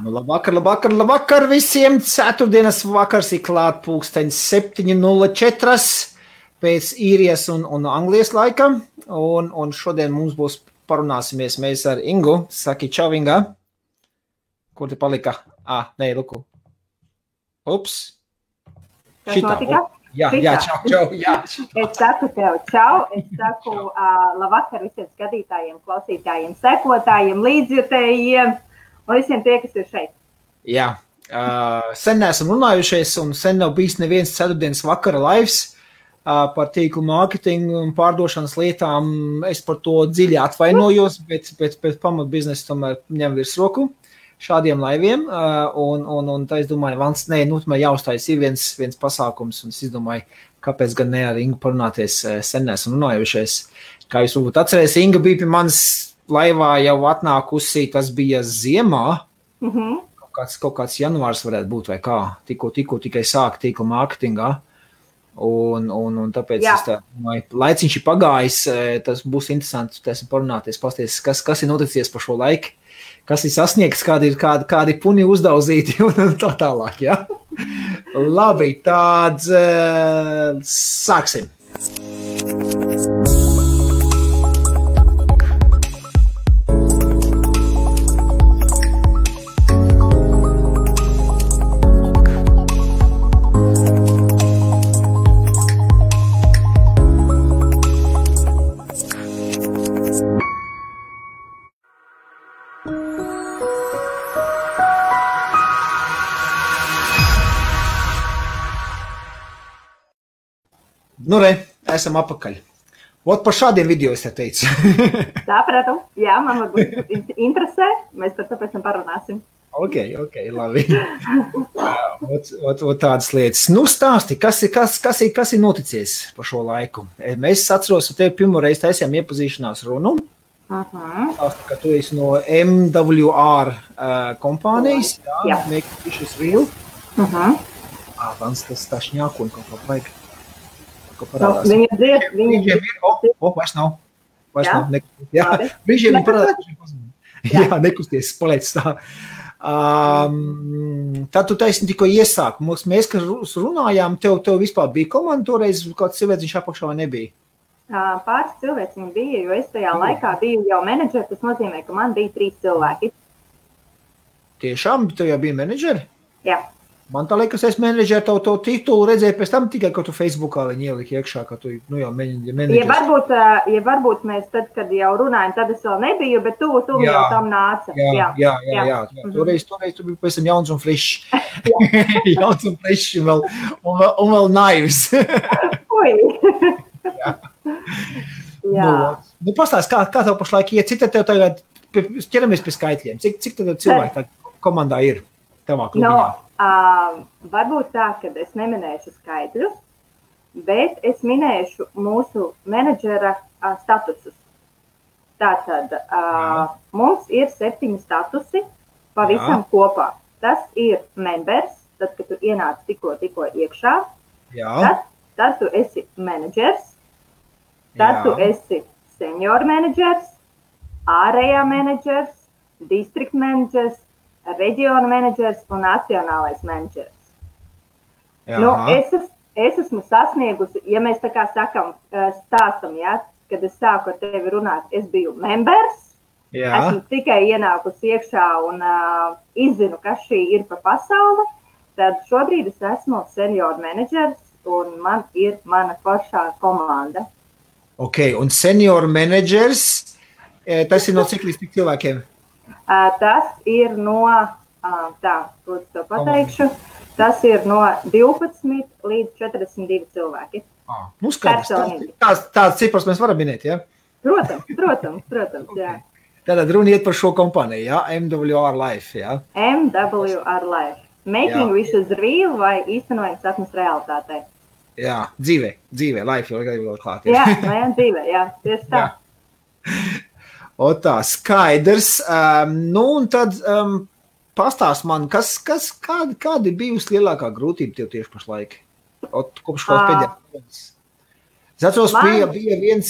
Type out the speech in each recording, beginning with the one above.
Nu, labvakar visiem. Ceturtdienas vakars ir klāt pulksteņs 7:04 pēc īrijas un Anglijas laika. Un šodien mums būs parunāsimies mēs ar Ingu. Saki čau, Inga. Kur te palika? Nē, luku. Ups. Šitā. Jā, čau. Jā. Es saku tev čau, es saku labvakar visiem skatītājiem, klausītājiem, sekotājiem, līdzjutējiem un visiem tie, kas ir šeit. Jā, sen neesam runājušies un sen nav bijis neviens ceturtdienas vakara lives par tīklu mārketingu un pārdošanas lietām. Es par to dziļi atvainojos, bet pamat biznesa tomēr ņem virsroku šādiem laiviem, un tā es domāju, tomēr jāuztais ir viens pasākums, un es izdomāju, kāpēc gan ne ar Ingu parunāties sen neesam runājušies. Kā jūs varbūt atcerēs, Inga bija pie manas laivā jau atnākusi, tas bija ziemā, kaut kāds janvārs varētu būt vai kā, tikko tikai sāk tīkla mārketingā, un tāpēc es tā domāju, laiciņš ir pagājis, tas būs interesanti, parunāties, pasties, kas ir noticies par šo laiku, kas ir sasniegts, kādi puni uzdauzīti un tā tālāk, jā? Labi, tāds sāksim. Nu, esam apakaļ. Ot, par šādiem video es te teicu. Sapratu. Jā, man varbūt interesē. Mēs par to pēc tam parunāsim. Ok, labi. Ot tādas lietas. Nu, stāsti, kas ir noticies par šo laiku? Mēs atceros, ka tev pirmo reizi taisījām iepazīšanās runu. Stāsti, ka tu esi no MWR kompānijas. Jā. Make Wishes Real. Tas tā šņāku un kaut kā vajag. Viņa dzied. Vairs nav. Jā, brīžiem viņa parādās. Jā, nekusties, paliec tā. Tad tu taisni tikko iesāk. Mēs, kas runājām, tev vispār bija komanda toreiz, kāds cilvēciņš apakšā vai nebija? Pāris cilvēciņi bija, jo es tajā laikā biju jau menedžeri, tas nozīmē, ka man bija 3 cilvēki. Tiešām? Tu jau bija menedžeri? Jā. Man tā liekas, es menedžeri to titulu redzēju pēc tam tikai, ka tu Facebookā viņi ielika iekšā, ka tu jau menedžers. Ja varbūt mēs tad, kad jau runājam, tad es vēl nebiju, bet tu jau tam nāca. Jā. Toreiz tu biji pēc tam jauns un frišs. Jauns un frišs un vēl naivs. Ui. Jā. Nu, pastāst, kā tev pašlaik iet, cik tev tagad, ķeramies pie skaitļiem, cik tev cilvēki tā komandā ir tavā klubiņā? Varbūt tā, ka es neminēšu skaitļus, bet es minēšu mūsu menedžera statusus. Tātad mums ir 7 statusi pavisam kopā. Tas ir members, tad, kad tu ienāc tikko iekšā, tad tu esi menedžers, tad tu esi senior menedžers, ārējā menedžers, district menedžers, reģiona menedžers un nacionālais menedžers. Nu, es esmu sasniegusi, ja mēs tā kā stāstam, kad es sāku ar tevi runāt, es biju members, esmu tikai ienākusi iekšā un izzinu, kas šī ir pa pasauli, tad šobrīd es esmu senior menedžers un man ir mana pašā komanda. Ok, un senior menedžers, tas ir no cik līdz tik cilvēkiem? Tas ir no, tas ir no 12 līdz 42 cilvēki. Nu, skaidrs. Tāds cipars mēs varam minēt, jā? Protams, jā. Tātad runa iet par šo kompāniju, jā? MWR Life, jā? MWR Life. Making Wishes Real vai īstenojam sapnes realitātei. Jā, dzīvē, life jau vēl klāt. Jā, dzīvē, jā, tieši tā. O tā, skaidrs. Nu, un tad pastāst man, kādi bijusi lielākā grūtība tev tieši pašlaik? Kopš kaut pēdējās. Es atceros, bija viens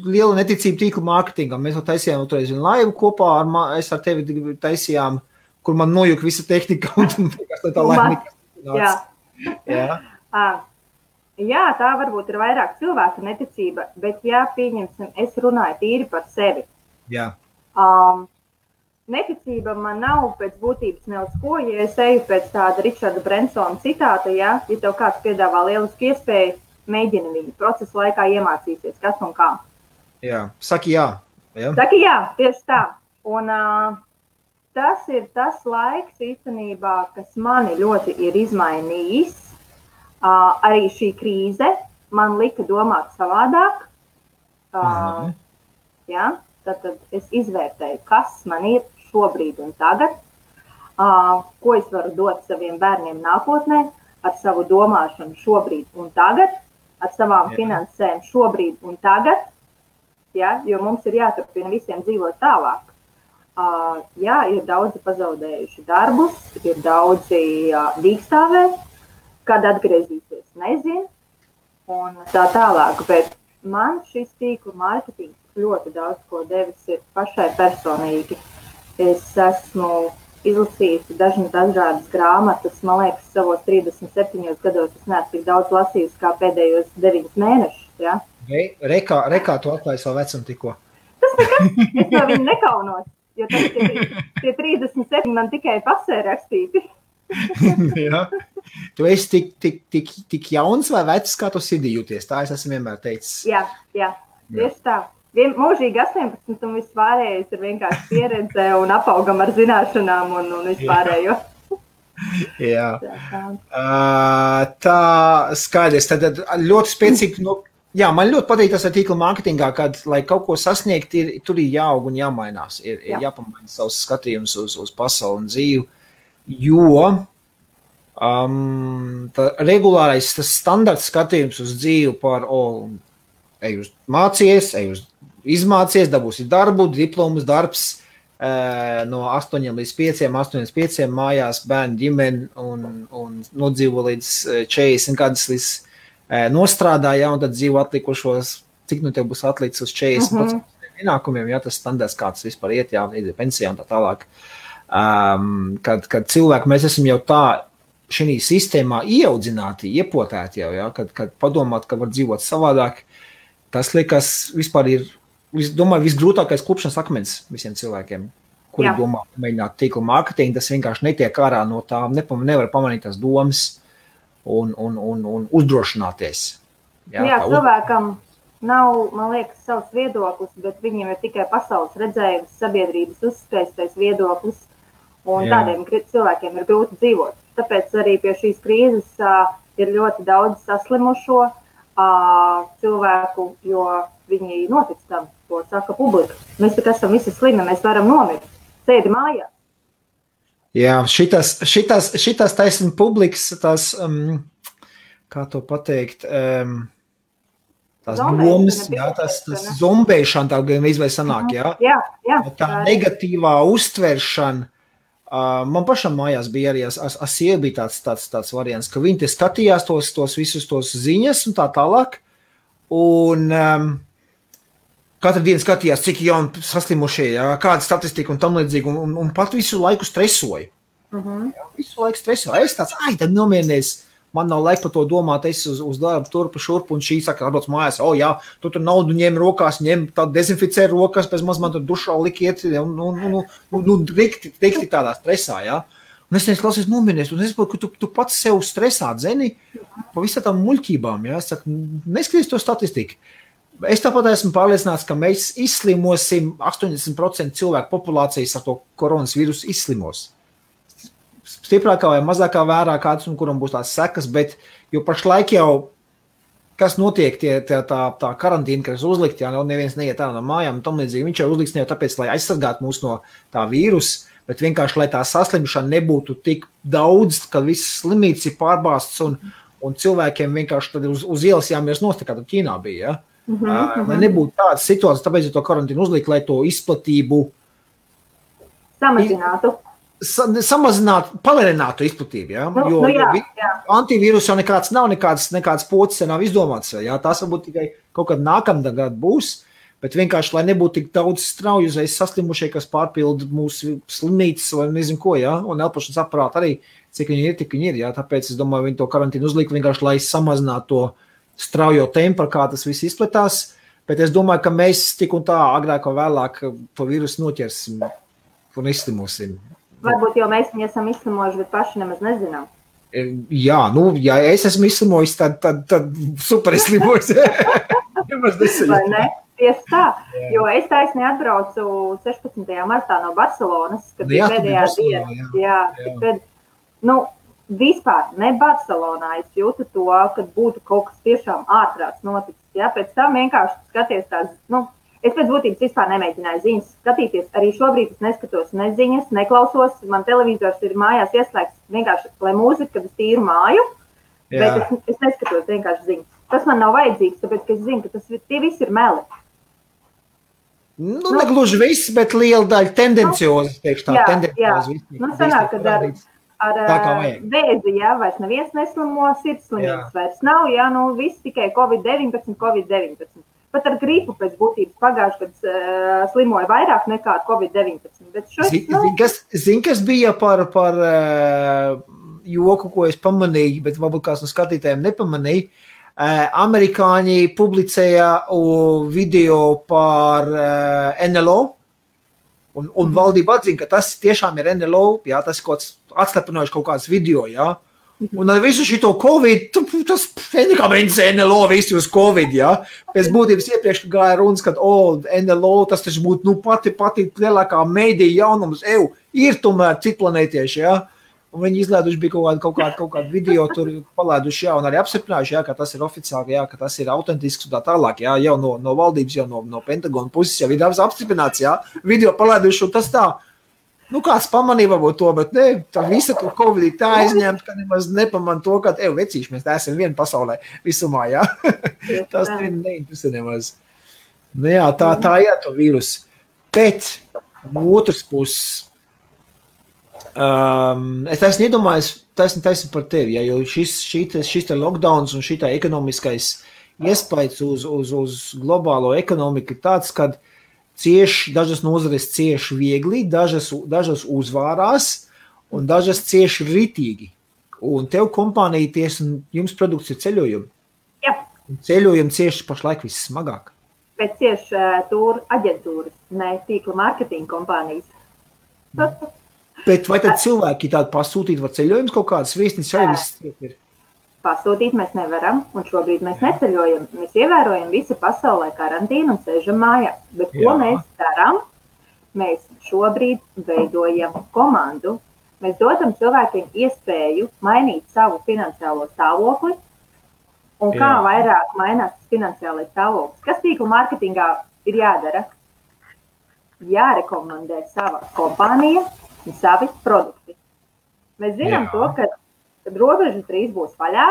liela neticība tīkla mārketingam. Mēs taisījām vienu laivu kopā, es ar tevi taisījām, kur man nojuka visa tehnika un tā laimīga. Jā. Jā, tā varbūt ir vairāk cilvēka neticība, bet pieņemsim, es runāju tīri par sevi. Jā. Neticība man nav pēc būtības ne uz ko, ja es eju pēc tāda Richarda Bransona citāta, ja tev kāds piedāvā lielisku iespēju, mēģini viņu procesu laikā iemācīties, kas un kā. Jā, saki jā. Saki jā, tieši tā. Un tas ir tas laiks īstenībā, kas mani ļoti ir izmainījis. Arī šī krīze man lika domāt savādāk. Tad es izvērtēju, kas man ir šobrīd un tagad, ko es varu dot saviem bērniem nākotnē, ar savu domāšanu šobrīd un tagad, ar savām finansēm šobrīd un tagad, jo mums ir jāturpina visiem dzīvot tālāk. Ir daudzi pazaudējuši darbus, ir daudzi dīkstāvē, kad atgriezīsies, nezinu, un tā tālāk, bet man šis tīklu mārketings ļoti daudz ko devis ir pašai personīgi. Es esmu izlasījusi dažādas grāmatas, man liekas, savos 37 gados es neesmu tik daudz lasījusi kā pēdējos 9 mēnešus, ja? Rekā tu atklāji savu vecumu tikko? Tas nekas, es no viņu nekaunos, jo tie 37 man tikai pasē rakstīti. Jā. Tu esi tik jauns vai vecs, kā tu sirdī jūties? Tā es esmu vienmēr teicis. Jā, tieši tā. Mūžīgi 18 un vispārējais ir vienkārši pieredze un apaugam ar zināšanām un vispārējo. Jā. Tā skaidrs. Tad ļoti spēcīgi, man ļoti patīk tas ar tīkla mārketingā, kad, lai kaut ko sasniegt, tur ir jāaug un jāmainās. Ir jāpamaina savus skatījumus uz pasauli un dzīvi. Jo regulārais tas standarts skatījums uz dzīvi par ej uz mācies, ej uz izmācies, dabūsi darbu, diplomas, darbs no 8 līdz 5 mājās, bērnu ģimeni un nodzīvo līdz 40 gadus līdz nostrādāja, un tad dzīvo atlikušos, cik nu tev būs atlicis uz 40% ienākumiem, tas standarts kāds vispār iet, iet pensijā un tā tālāk. Kad cilvēki, mēs esam jau tā šī sistēmā ieaudzināti, iepotēti jau, kad padomāt, ka var dzīvot savādāk, tas liekas vispār ir, domāju, visgrūtākais klupšanas akmens visiem cilvēkiem, kuri domā, mēģināt tīkla mārketingu, tas vienkārši netiek ārā no tā, nevar pamanīt tās domas un uzdrošināties. Cilvēkam nav, man liekas, savs viedoklis, bet viņiem ir tikai pasaules redzējums, sabiedrības uzspēstais viedoklis, un tādiem cilvēkiem ir grūti dzīvot. Tāpēc arī pie šīs krīzes ir ļoti daudz saslimušo cilvēku, jo viņi notic tam, ko saka publika. Mēs tik esam visi slimi, mēs varam nomirt. Sēdi mājās. Jā, šitas taisn publikas, tas, kā to pateikt, tās domas, tas zombēšana tā gan izvēl sanāk, tā negatīvā uztveršana. Man pašam mājās bija arī, sieva bija tāds variants, ka viņi te skatījās tos visus tos ziņas un tā tālāk, un katru dienu skatījās, cik jauni saslimušie, kāda statistika un tam līdzīgi, un pat visu laiku stresoja. Visu laiku stresoja. Es tāds, tad nomierinies, man nav laika par to domāt, es uz darbu turpu šurpu, un šī saka, atbrauc mājās, tu tur naudu ņem rokās, dezinficē rokas, pēc maz man tur dušā likiet, rikti tādā stresā, Un es klausies nomierinies, un es saprotu, ka tu pats sev stresā dzeni pa visā tām muļķībām, Es saku, neskaties to statistiku. Es tāpat esmu pārliecināts, ka mēs izslimosim 80% cilvēku populācijas ar to koronas vīrusu izslimos. Stiprākā vai mazākā vērā kāds, un kuram būs tās sekas, bet jo pašlaik jau, kas notiek, tā karantīna, kas uzlikt, neviens neiet ārā no mājām, un tam līdzīgi viņš jau uzliks ne jau tāpēc, lai aizsargātu mūs no tā vīrusa, bet vienkārši, lai tā saslimšana nebūtu tik daudz, ka viss slimīts ir pārbāsts, un cilvēkiem vienkārši tad uz ielas jāmies nost, kā tad Ķīnā bija, Lai nebūtu tādas situācijas, tāpēc to karantīnu uzlikt, lai to izplatību samazinātu, palierinātu izplatību, jo antivīrus jau nekāds nav, nekāds pocis nav izdomāts, tās varbūt tikai kaut kad nākamgad būs, Bet vienkārši, lai nebūtu tik daudz strauju uzreiz saslimušie, kas pārpilda mūsu slimnīcas vai nezinu ko, ja? Un elpošanas aparāti arī, cik viņi ir, tik viņi ir. Ja? Tāpēc es domāju, viņi to karantīnu uzlika vienkārši, lai samazinātu to straujo tempu, kā tas viss izplatās. Bet es domāju, ka mēs tik un tā agrāk vai vēlāk to vīrusu noķersim un izslimosim. Varbūt jau mēs viņu esam izslimojuši, bet paši nemaz nezinām. Jā, ja es esmu izslimojis, tad super izslimojis. Vai ne? Tieši tā, jo es taisnīgi atbraucu 16. martā no Barcelonas, kad bija pēdējā diena. Vispār ne Barcelonā es jūtu to, kad būtu kaut kas tiešām ārprāts noticis. Ja? Pēc tam vienkārši skaties tās, es pēc būtības vispār nemēģināju ziņas skatīties. Arī šobrīd es neskatos ne ziņas, neklausos. Man televizors ir mājās ieslēgts vienkārši, lai mūzika, kad es tīru māju, bet es neskatos vienkārši ziņas. Tas man nav vajadzīgs, tāpēc, ka es zinu, ka tie visi ir meli. Negluži viss, bet liela daļa tendenciozi, teikšu tā, tendenciozi. Sanāk, kad ar vēzi, vairs neviens neslimo, sirdslimības vairs nav, viss tikai Covid-19. Pat ar gripu pēc būtības pagājuši, kad slimoja vairāk nekā ar Covid-19. Zini, kas bija par joku, ko es pamanīju, bet varbūt kāds no skatītājiem nepamanīja. Amerikāņi publicēja video par NLO, un valdība atzina, ka tas tiešām ir NLO, tas ir kaut kāds atslepinoši kaut kāds video, Un ar visu šito Covid, tas nekā mēģis NLO visi uz Covid, Pēc būtības iepriekš gāja runas, ka NLO, tas taču būtu pati lielākā mēdīja jaunums, ir tomēr citplanētieši, Un viņi izlēduši bija kaut kādu video tur palēduši, un arī apstiprinājuši, ka tas ir oficiāli, ka tas ir autentisks un tā tālāk, jau no valdības, jau no Pentagona puses, jau ir apstiprināts, video palēduši, un tas tā, kāds pamanīja varbūt to, bet ne, tā visa to Covid tā aizņemt, ka nemaz nepaman to, ka, vecīši, mēs tā esam viena pasaulē visumā, Tas neinteresē nemaz. Tā ir to vīrusu. Bet no otras puses, es esmu iedomājies taisni par tevi, jo šis lockdowns un šitā ekonomiskais iespējas uz globālo ekonomiku ir tāds, kad dažas nozares cieši viegli, dažas uzvārās un dažas cieši ritīgi. Un tev kompānija jums produkts ir ceļojumi. Jā. Un ceļojumi cieši pašlaik vissmagāk. Bet cieši tur aģentūras, ne tīkla mārketinga kompānijas. Bet vai tad cilvēki tādu pasūtīt var ceļojumus kaut kādas viesnīcas arī viss ir? Pasūtīt mēs nevaram, un šobrīd mēs neceļojam. Mēs ievērojam visu pasaulē karantīnu un sēžam mājā. Bet ko mēs darām? Mēs šobrīd veidojam komandu. Mēs dodam cilvēkiem iespēju mainīt savu finansiālo stāvokli un kā vairāk mainās tas finansiālais stāvoklis. Kas tīkla mārketingā ir jādara? Jārekomendē sava kompānija un savi produkti. Mēs zinām to, kad robežas drīz būs vaļā,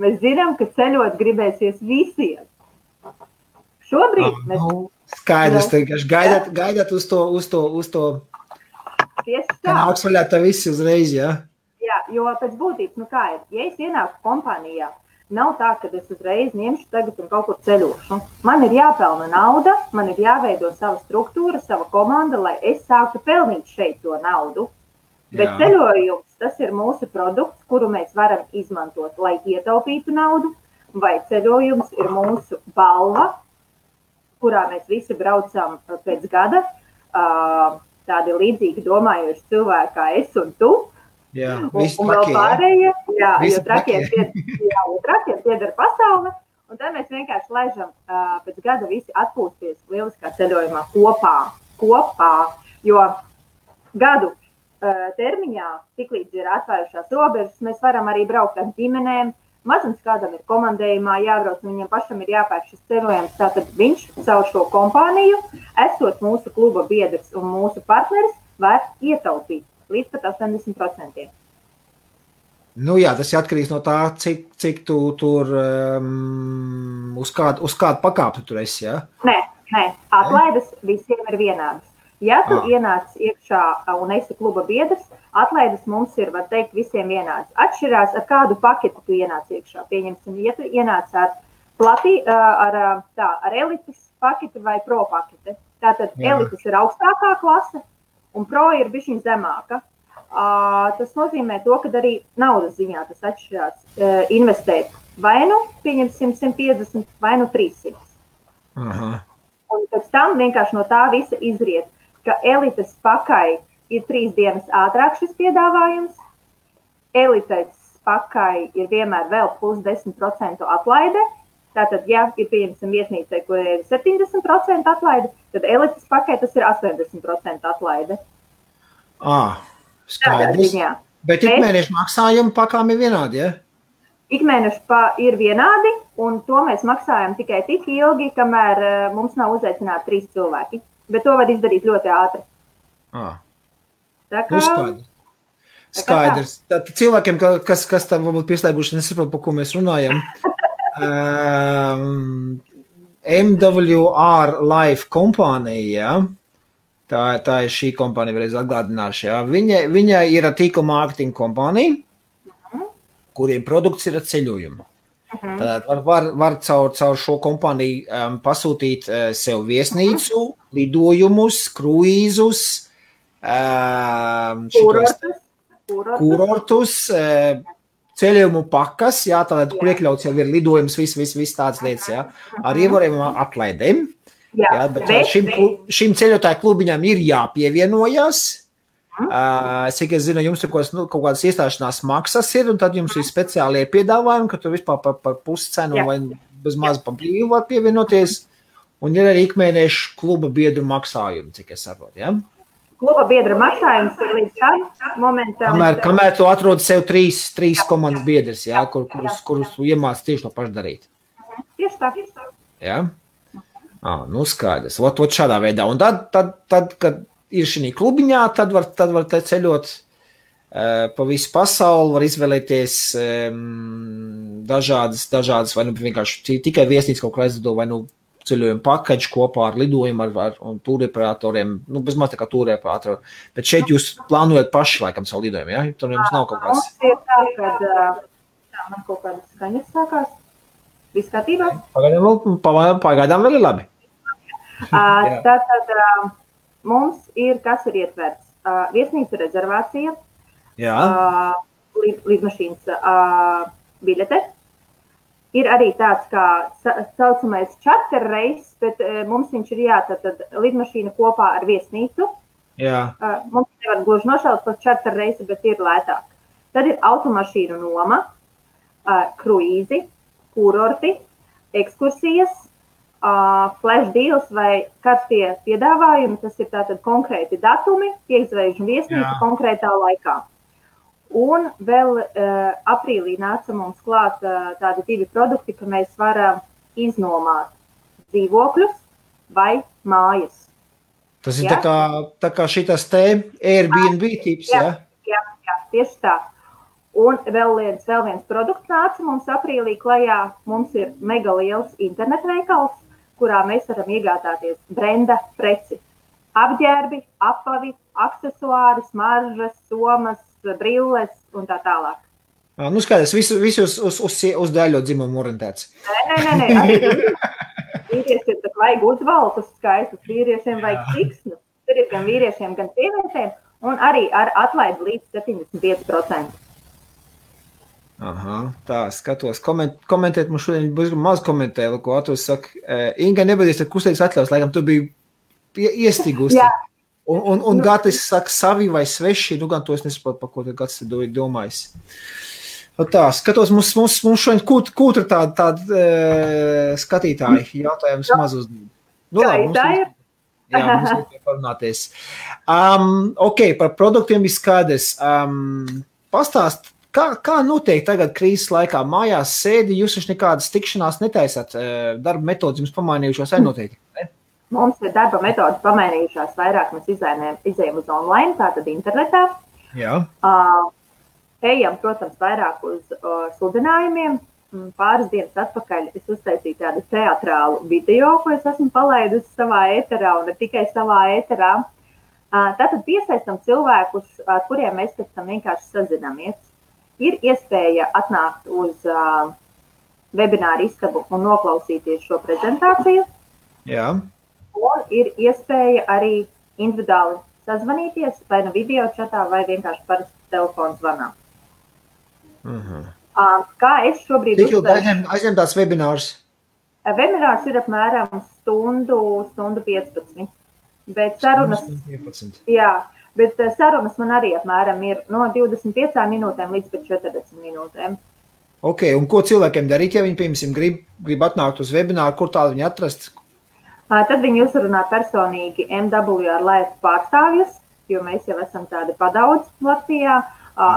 mēs zinām, ka ceļot gribēsies visiem. Šobrīd mēs... Skaidrs, gaidāt uz to Tieši tā. Nāks vaļā tā visi uzreiz, Jā, jo pēc būtības, kā ir, ja es ienāku kompānijā, nav tā, ka es uzreiz ņemšu tagad un kaut kur ceļošu. Man ir jāpelna nauda, man ir jāveido sava struktūra, sava komanda, lai es sāktu pelnīt šeit to naudu. Bet ceļojums, tas ir mūsu produkts, kuru mēs varam izmantot, lai ietaupītu naudu, vai ceļojums ir mūsu balva, kurā mēs visi braucam pēc gada, tādi līdzīgi domājoši cilvēki kā es un tu, un vēl pārējie, jo trakiem pieder pasaule, un tad mēs vienkārši laižam pēc gada visi atpūsties lieliskā ceļojumā kopā, jo gadu termiņā, tiklīdz ir atvērušās robežas, mēs varam arī braukt ar ģimenēm. Mazums kādam ir komandējumā jābrauc, un viņam pašam ir jāpērk šis ceļojums. Tātad viņš caur šo kompāniju, esot mūsu kluba biedrs un mūsu partneris, var ietaupīt līdz pat 80%. Tas ir atkarīgs no tā, cik tu tur uz kādu pakāpi tur esi, Nē, atlaides visiem ir vienādas. Ja tu ienāc iekšā un esi kluba biedrs, atlaides mums ir, var teikt, visiem vienāds. Atšķirās, ar kādu paketu tu ienāc iekšā. Pieņemsim, ja tu ienāc ar elites pakete vai pro pakete. Tātad elites ir augstākā klase un pro ir bišķiņ zemāka. Tas nozīmē to, ka arī naudas ziņā tas atšķirās investēt vai nu pieņemsim 150 vai nu 300. Aha. Un pēc tam vienkārši no tā visa izriet, ka elites pakai ir 3 dienas ātrāk šis piedāvājums, elites pakai ir vienmēr vēl plus 10% atlaide. Tātad, ja ir pieņemsim viesnīcai, kur ir 70% atlaide, tad elites pakai tas ir 80% atlaide. Skaidrs. Bet ikmēneša maksājumi pakām ir vienādi, ja? Ikmēneša ir vienādi, un to mēs maksājam tikai tik ilgi, kamēr mums nav uzaicināti 3 cilvēki. Bet to var izdarīt ļoti ātri. Skaidrs. Tātad cilvēkiem, kas tam varbūt pieslēguši, nesaprot, par ko mēs runājam. MWR Life kompānija, tā ir šī kompānija, vēlreiz atgādināšu, ja? Viņa ir tīkla mārketinga kompānija, kuriem produkts ir ceļojumi. Tātad var caur šo kompāniju pasūtīt sev viesnīcu, lidojumus, kruīzus, kurortus, ceļojumu pakas, jā, tātad, kur iekļauts jau ir lidojums, viss tāds lietas, jā, ar ievarējumām atlaidēm. Jā, bet šim ceļotāju klubiņam ir jāpievienojas. Cik es zinu, jums ir kaut kādas iestāšanās maksas ir, un tad jums ir speciālie piedāvājumi, ka tu vispār par puscenu vai bez maz pa brīvu var pievienoties, un ir arī ikmēneša kluba biedru maksājumi, cik es saprotu, jā? Kluba biedra maksājums ir līdz šādam momentam. Kamēr tu atrodi sev 3 komandas biedrs, jā, kurus tu iemāc tieši to pašu darīt. Tieši tā. Jā? Nu skaidrs. Ot šādā veidā. Un tad kad ir šī klubiņā, tad var te ceļot pa visu pasauli, var izvēlēties dažādas vai nu vienkārši tikai viesnīca kaut kā aizlido, vai nu ceļojumu pakaļu kopā ar lidojumu un tūreparatoriem, nu bez maz tā kā tūreparatori. Bet šeit jūs plānojat paši laikam savu lidojumu, ja? Tur jums nav kaut kāds... Mums ir tā, kad man kaut kādas skaņas sākās. Viss kārtībā? Pagaidām vēl ir labi. Tātad mums ir, kas ir ietverts? Viesnīca rezervācija, lidmašīnas biļete. Ir arī tāds kā saucamais charter reis, bet mums viņš ir tātad lidmašīna kopā ar viesnīcu. Jā. Mums nevar gluži nošaut par charter reisu, bet ir lētāk. Tad ir automašīnu noma, kruīzi, kurorti, ekskursijas, flash deals vai karstie piedāvājumi. Tas ir tātad konkrēti datumi, iezvežu viesnīcu konkrētā laikā. Un vēl aprīlī nāca mums klāt tādi 2 produkti, ka mēs varam iznomāt dzīvokļus vai mājas. Tas ir tā kā šitas te Airbnb tips, ja? Jā, tieši tā. Un vēl viens produkts nāca mums aprīlī klajā. Mums ir mega liels internetveikals, kurā mēs varam iegādāties brenda preci. Apģērbi, apavi, aksesuāri, smaržas, somas, brilles un tā tālāk. Nu skaidrs, visi uz daļo dzimumu orientēts. Nē. Vīriešiem tak vajag uzvalkus skaistus, vīriešiem vajag siksnu. Tur ir gan vīriešiem, gan sievietēm, un arī ar atlaidi līdz 75%. Aha, tā, skatos. Komentēt, mums šodien būs maz komentēju, ko Atos saka. Inga, nebadies, tad kustīgs atļaus, laikam tu biji iestigusi. Jā. Un Gatis saka savi vai sveši, nu gan to es nesaprotu, par ko te Gatis domājis. Tā, skatos, mums šodien kūtra tāda skatītāji jautājums maz uzdod. Nu labi, mums ir parunāties. Ok, par produktiem ir skaidrs. Pastāst, kā notiek tagad krīzes laikā? Mājās sēdi, jūs taču nekādas tikšanās netaisat, darba metodas jums pamainījušos noteikti, ne? Mums ir darba metodas pamainījušās vairāk, mēs izējam uz online, tātad internetā. Jā. Ejam, protams, vairāk uz sludinājumiem. Pāris dienas atpakaļ es uztaisīju tādu teatrālu video, ko es esmu palaidusi savā ēterā un ne tikai savā ēterā. Tātad piesaistam cilvēkus, ar kuriem mēs pēc tam vienkārši sazinamies. Ir iespēja atnākt uz webināru istabu un noklausīties šo prezentāciju. Jā. Un ir iespēja arī individuāli sazvanīties, vai nu video čatā, vai vienkārši parasti telefonu zvanā. Kā es šobrīd Cik ilgi aizņem tās webinārs? Webinārs ir apmēram stundu 15. Bet sarunas, bet sarunas man arī apmēram ir no 25 minūtēm līdz 40 minūtēm. Ok, un ko cilvēkiem darīt, ja viņi, piemēram, grib atnākt uz webināru, kur tādu viņi atrast? Tad viņi uzrunā personīgi MW ar Life pārstāvjus, jo mēs jau esam tādi padaudz Latvijā.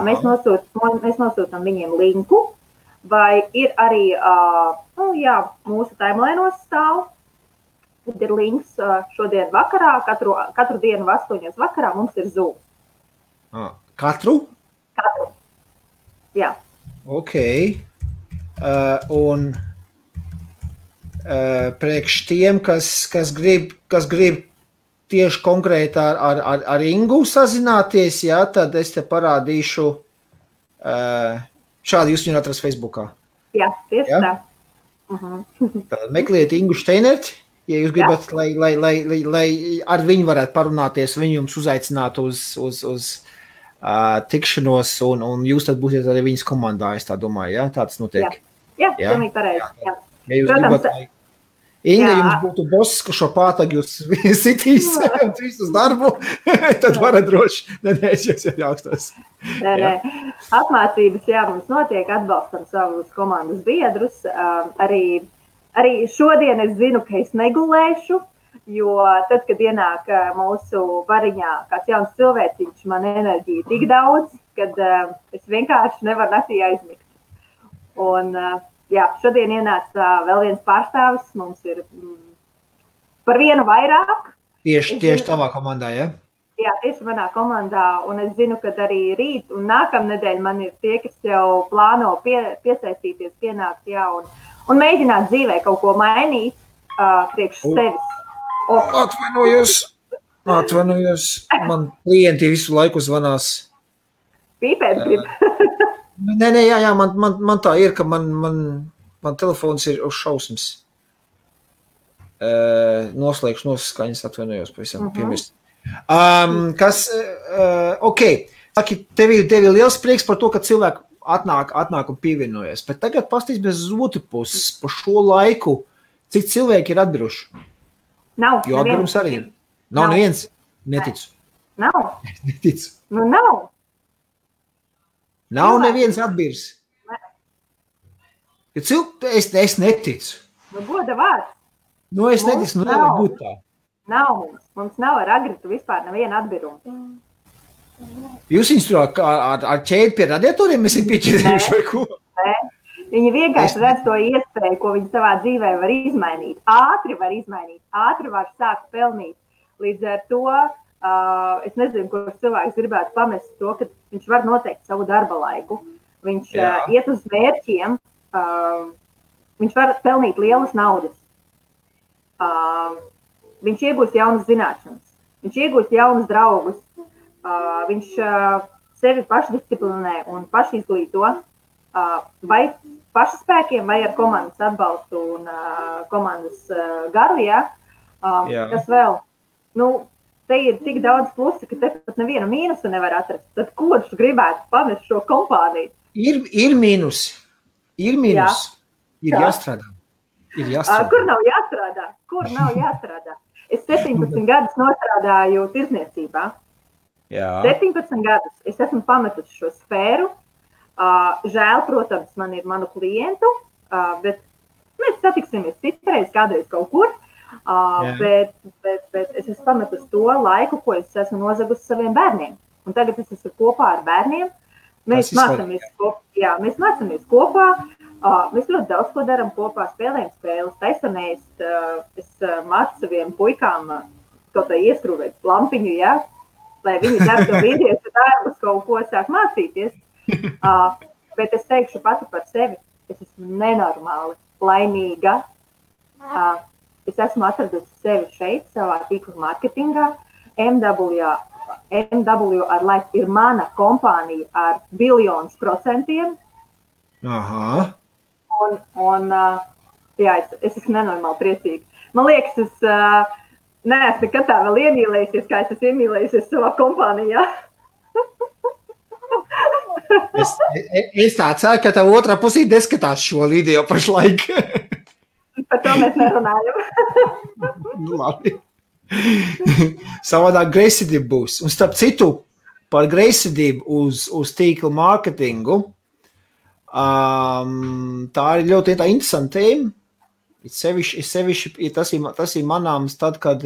Mēs nosūtam viņiem linku, vai ir arī, mūsu timelainos stāv. Tad ir links šodien vakarā, katru dienu 8 vakarā mums ir Zoom. Katru? Katru, jā. Ok, un priekš tiem, kas grib tieši konkrēti ar Ingu sazināties, jā, tad es te parādīšu, šādi jūs viņu atrast Facebookā. Jā, tieši tā. Tad meklējiet Ingu Steinerti, ja jūs gribat, lai ar viņu varētu parunāties, viņu jums uzaicinātu uz tikšanos, un jūs tad būsiet arī viņas komandā, es tā domāju, jā? Tā tas notiek. Jā, pilnīgi pareizi. Ja jūs gribat, lai Inga jums būtu boss, ka šo pātagu jūs sitīs un trīs uz darbu, tad varat droši, es jūs jautās. Nē. Apmācības, mums notiek, atbalstam savus komandas biedrus. Arī šodien es zinu, ka es negulēšu, jo tad, kad ienāk mūsu variņā kāds jauns cilvēciņš, man enerģija tik daudz, kad es vienkārši nevaru naktī aizmigt. Un, šodien ienāca vēl viens pārstāvis, mums ir par vienu vairāk. Tieši tavā komandā, ja? Jā, tieši manā komandā, un es zinu, ka arī rīt un nākamnedēļ man ir tie, kas jau plāno piesaistīties, pienākt, un mēģināt dzīvē kaut ko mainīt priekš sevis. Atvainojos, man klienti visu laiku zvanās. Pīpēt grib. Nē, man tā ir, ka man telefons ir uz šausmas. Noslēgšu noskaņas, atvainojos pavisam piemirst. Ok, saki, tev ir liels prieks par to, ka cilvēki atnāk un pievienojas, bet tagad pastīst bez otru puses par šo laiku, cik cilvēki ir atbiruši. Nav. Jo atbirums arī ir. Nav neviens? Neticu. Nav. Neticu. Nu, nav. Nav neviens atbirs. Es neticu. Nu, goda vārds. Es neticu, nevar būt tā. Nav mums. Mums nav ar Agritu vispār neviena atbiruma. Jūs viņus tur ar ķēdi pie radiatoriem esat pieķerējuši vai ko? Nē. Viņi vienkārši redz to iespēju, ko viņi savā dzīvē var izmainīt. Ātri var sākt pelnīt. Līdz ar to es nezinu, kurš cilvēks gribētu pamest to, ka viņš var noteikt savu darba laiku. Viņš iet uz mērķiem, viņš var pelnīt lielas naudas. Viņš iegūst jaunas zināšanas, viņš iegūst jaunus draugus, viņš sevi pašdisciplinē un pašizglīto, vai pašspēkiem, vai ar komandas atbalstu un komandas garu, kas vēl. Te ir tik daudz plusi, ka te pat nevienu mīnusu nevar atrast. Tad kurš gribētu pamest šo kompāniju? Ir mīnusi. Ir jāstrādā. Kur nav jāstrādā? Es 17 gadus nostrādāju tirdzniecībā. 17 gadus es esmu pametusi šo sfēru. Žēl, protams, man ir manu klientu, bet mēs satiksimies citreiz, kādreiz kaut kur. Bet es esmu pametusi to laiku, ko es esmu nozagusi saviem bērniem. Un tagad es esmu kopā ar bērniem. Mēs mācāmies kopā. Mēs ļoti daudz ko darām kopā, spēlējam spēles, taisanēst. Es mācu saviem puikām kaut kā ieskrūvēt lampiņu, lai viņi dar to vīriešu darbus, kaut ko sāk mācīties. Bet es teikšu pati par sevi, es esmu nenormāli laimīga. Es esmu atradusi sevi šeit, savā tīkla mārketingā. MW ar Life ir mana kompānija ar 1 000 000%. Aha. Un es esmu nenormāli priecīga. Man liekas, es neesmu nekad tā vēl iemīlējusies, kā es esmu iemīlējusies savā kompānijā. Es tā ceru, ka tev otrā pusī neskatās šo video pašlaik. Par to mēs nerunājam. Labi. Savādāk greizsirdība būs. Un starp citu, par greizsirdību uz tīkla mārketingu, tā ir ļoti interesanta tēma. Sevišķi tas ir manāms tad, kad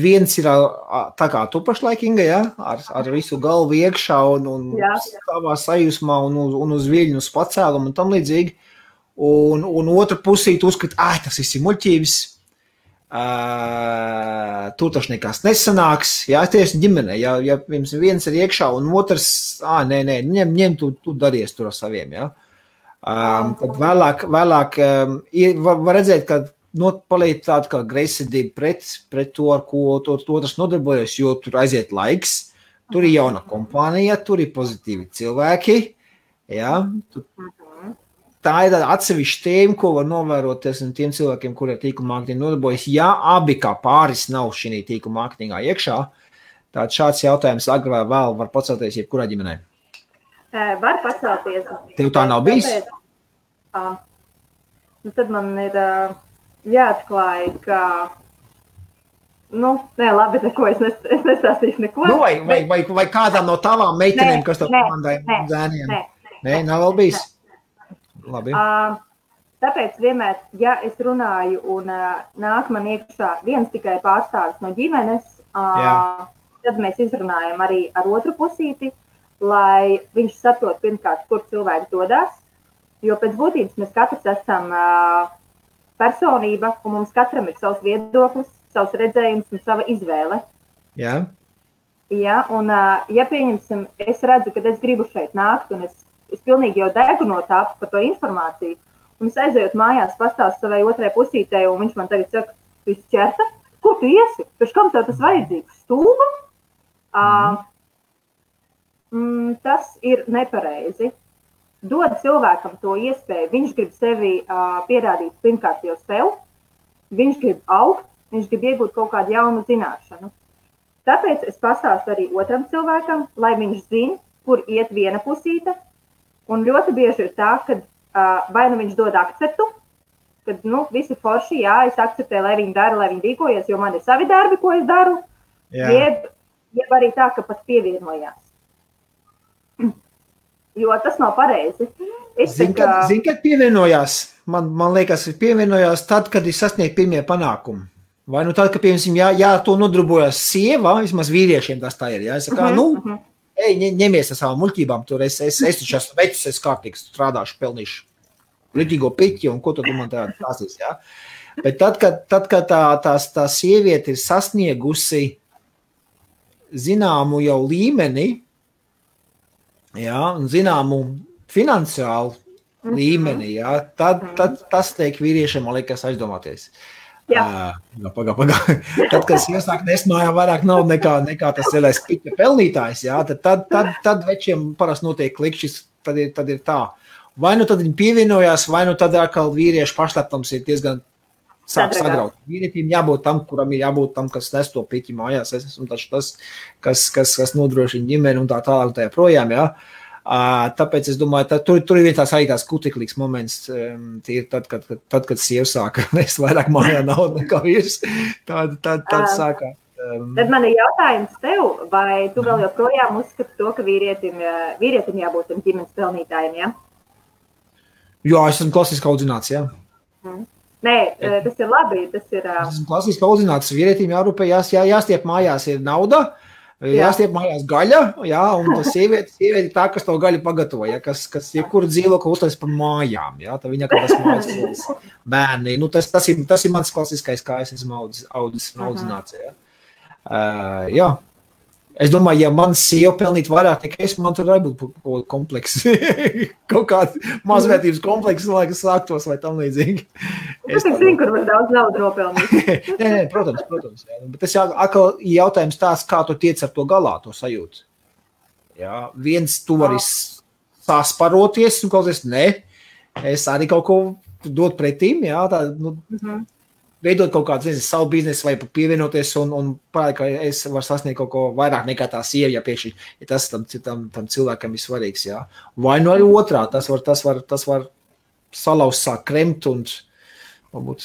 viens ir tā kā tu pašlaik, Inga, ja? ar visu galvu iekšā un savā sajūsmā un uz viļņu, uz pacēlumu un tam līdzīgi. Un otra pusī tu uzskati, tas ir muļķības, tur taču nekas nesanāks, jā, tieši ģimenē, ja viens ir iekšā un otrs, nē, ņem tu daries tur ar saviem, jā. Tad vēlāk var redzēt, ka paliek tāda kā greizsirdība pret to, ar ko otrs nodarbojas, jo tur aiziet laiks, tur ir jauna kompānija, tur ir pozitīvi cilvēki, jā, tā ir tāda atsevišķa tēma, ko var novēroties no tiem cilvēkiem, kuri ar tīkla mārketingu nodarbojas. Ja abi kā pāris nav šī tīkla mārketingā iekšā, tad šāds jautājums agrāk vai vēl var pacelties jebkurā ģimenē. Var pacelties. Tev tā nav bijis? Tad man ir jāatklāj, ka labi, neko es nestāstīšu neko. Vai kādām no tavām meitenēm, kas tev komandāja zēniem? Nē, nav vēl bijis? Labi. Tāpēc vienmēr, ja es runāju un nāk man iekšā viens tikai pārstāvis no ģimenes, tad mēs izrunājam arī ar otru pusīti, lai viņš saprot pirmkārt, kur cilvēki dodas, jo pēc būtības mēs katrs esam personība un mums katram ir savs viedoklis, savs redzējums un sava izvēle. Jā. Ja, un ja pieņemsim, es redzu, ka es gribu šeit nākt un es pilnīgi jau degu no tā par to informāciju. Un es aizējot mājās, pastāstu savai otrai pusītei, un viņš man tagad saka, tu esi ķerta? Ko tu iesi? Pēc kam tev tas vajadzīgs? Stūma? Tas ir nepareizi. Dod cilvēkam to iespēju. Viņš grib sevi pierādīt pirmkārt jau sev. Viņš grib augt, viņš grib iegūt kaut kādu jaunu zināšanu. Tāpēc es pastāstu arī otram cilvēkam, lai viņš zina, kur iet viena pusīte. Un ļoti bieži ir tā, ka vai nu viņš dod akceptu, kad visi forši, es akceptēju, lai viņi dara, lai viņi rīkojas, jo man ir savi darbi, ko es daru, jeb arī tā, ka pat pievienojās. Jo tas nav pareizi. Zini, kad pievienojās? Man liekas, pievienojās tad, kad ir sasniegt pirmie panākumi. Vai nu tad, ka, piemēram, to nodarbojas sieva, vismaz vīriešiem tas tā ir, es saku, ņemies ar savām muļķībām, tur es taču esmu vecis, es kārtīgs strādāšu, pelnīšu ritīgo piķi, un ko tu man tās esi, jā. Bet tad, kad tā sieviete ir sasniegusi zināmu jau līmeni, jā, un zināmu finansiālu līmeni, jā, tad tas teik vīriešiem, man liekas, aizdomāties. Pagā. Tad, kad es iesāku nesmājā vairāk nav nekā tas lielais piķa pelnītājs, jā, tad večiem parasti notiek klikšķis, tad ir tā. Vai nu tad viņi pievienojās, vai nu tad atkal vīriešu pašleptums ir diezgan sāk sagraut. Vīrietim jābūt tam, kuram ir jābūt tam, kas nes to piķi mājās. Es esmu taču tas, kas nodrošina ģimeni un tā tālāk tajā projām, jā. Tāpēc es domāju, tur ir viens tās arī tās kuteklīgs moments, tad, kad sieva sāka nest vairāk mājā naudu nekā vīrs, tad sākā. Tad man ir jautājums tev, vai tu vēl joprojām uzskati to, ka vīrietim jābūt ģimenes pelnītājiem, ja? Jā, es esmu klasiski audzināts, jā. Nē, tas ir labi, tas ir... Es esmu klasiski audzināts, vīrietim jārūpējās, jāstiep mājās ir nauda, jāstiep mājās gaļa, jā, un tas sieviete ir tā, kas to gaļu pagatavo, ja, kas jebkuru dzīvokli uztais par mājām, jā, tā viņa kā tas mājas bērni, tas ir mans klasiskais, kā es esmu audzis un audzināts, jā. Jā. Es domāju, ja man sieva pelnīt vairāk nekā es, man tur arī būtu kompleks. Kaut kāds mazvērtības kompleks, lai kas sāktos vai tam līdzīgi. Es zinu, kur var daudz naudu nopelnīt. Nē, protams. Jā. Bet tas atkal jautājums tās, kā tu tiec ar to galā, to sajūtu. Jā, viens tu vari sasparoties un klausies, ne, es arī kaut ko dot pretīm, jā, tā, veidot kaut kādu, nezinu, savu biznesu vai pievienoties un parādi, ka es varu sasniegt kaut ko vairāk nekā tā sieva, ja pēkšņi, ja tas tam cilvēkam ir svarīgs, jā. Vai nu arī otrā, tas var salauzt, sāk kremt un varbūt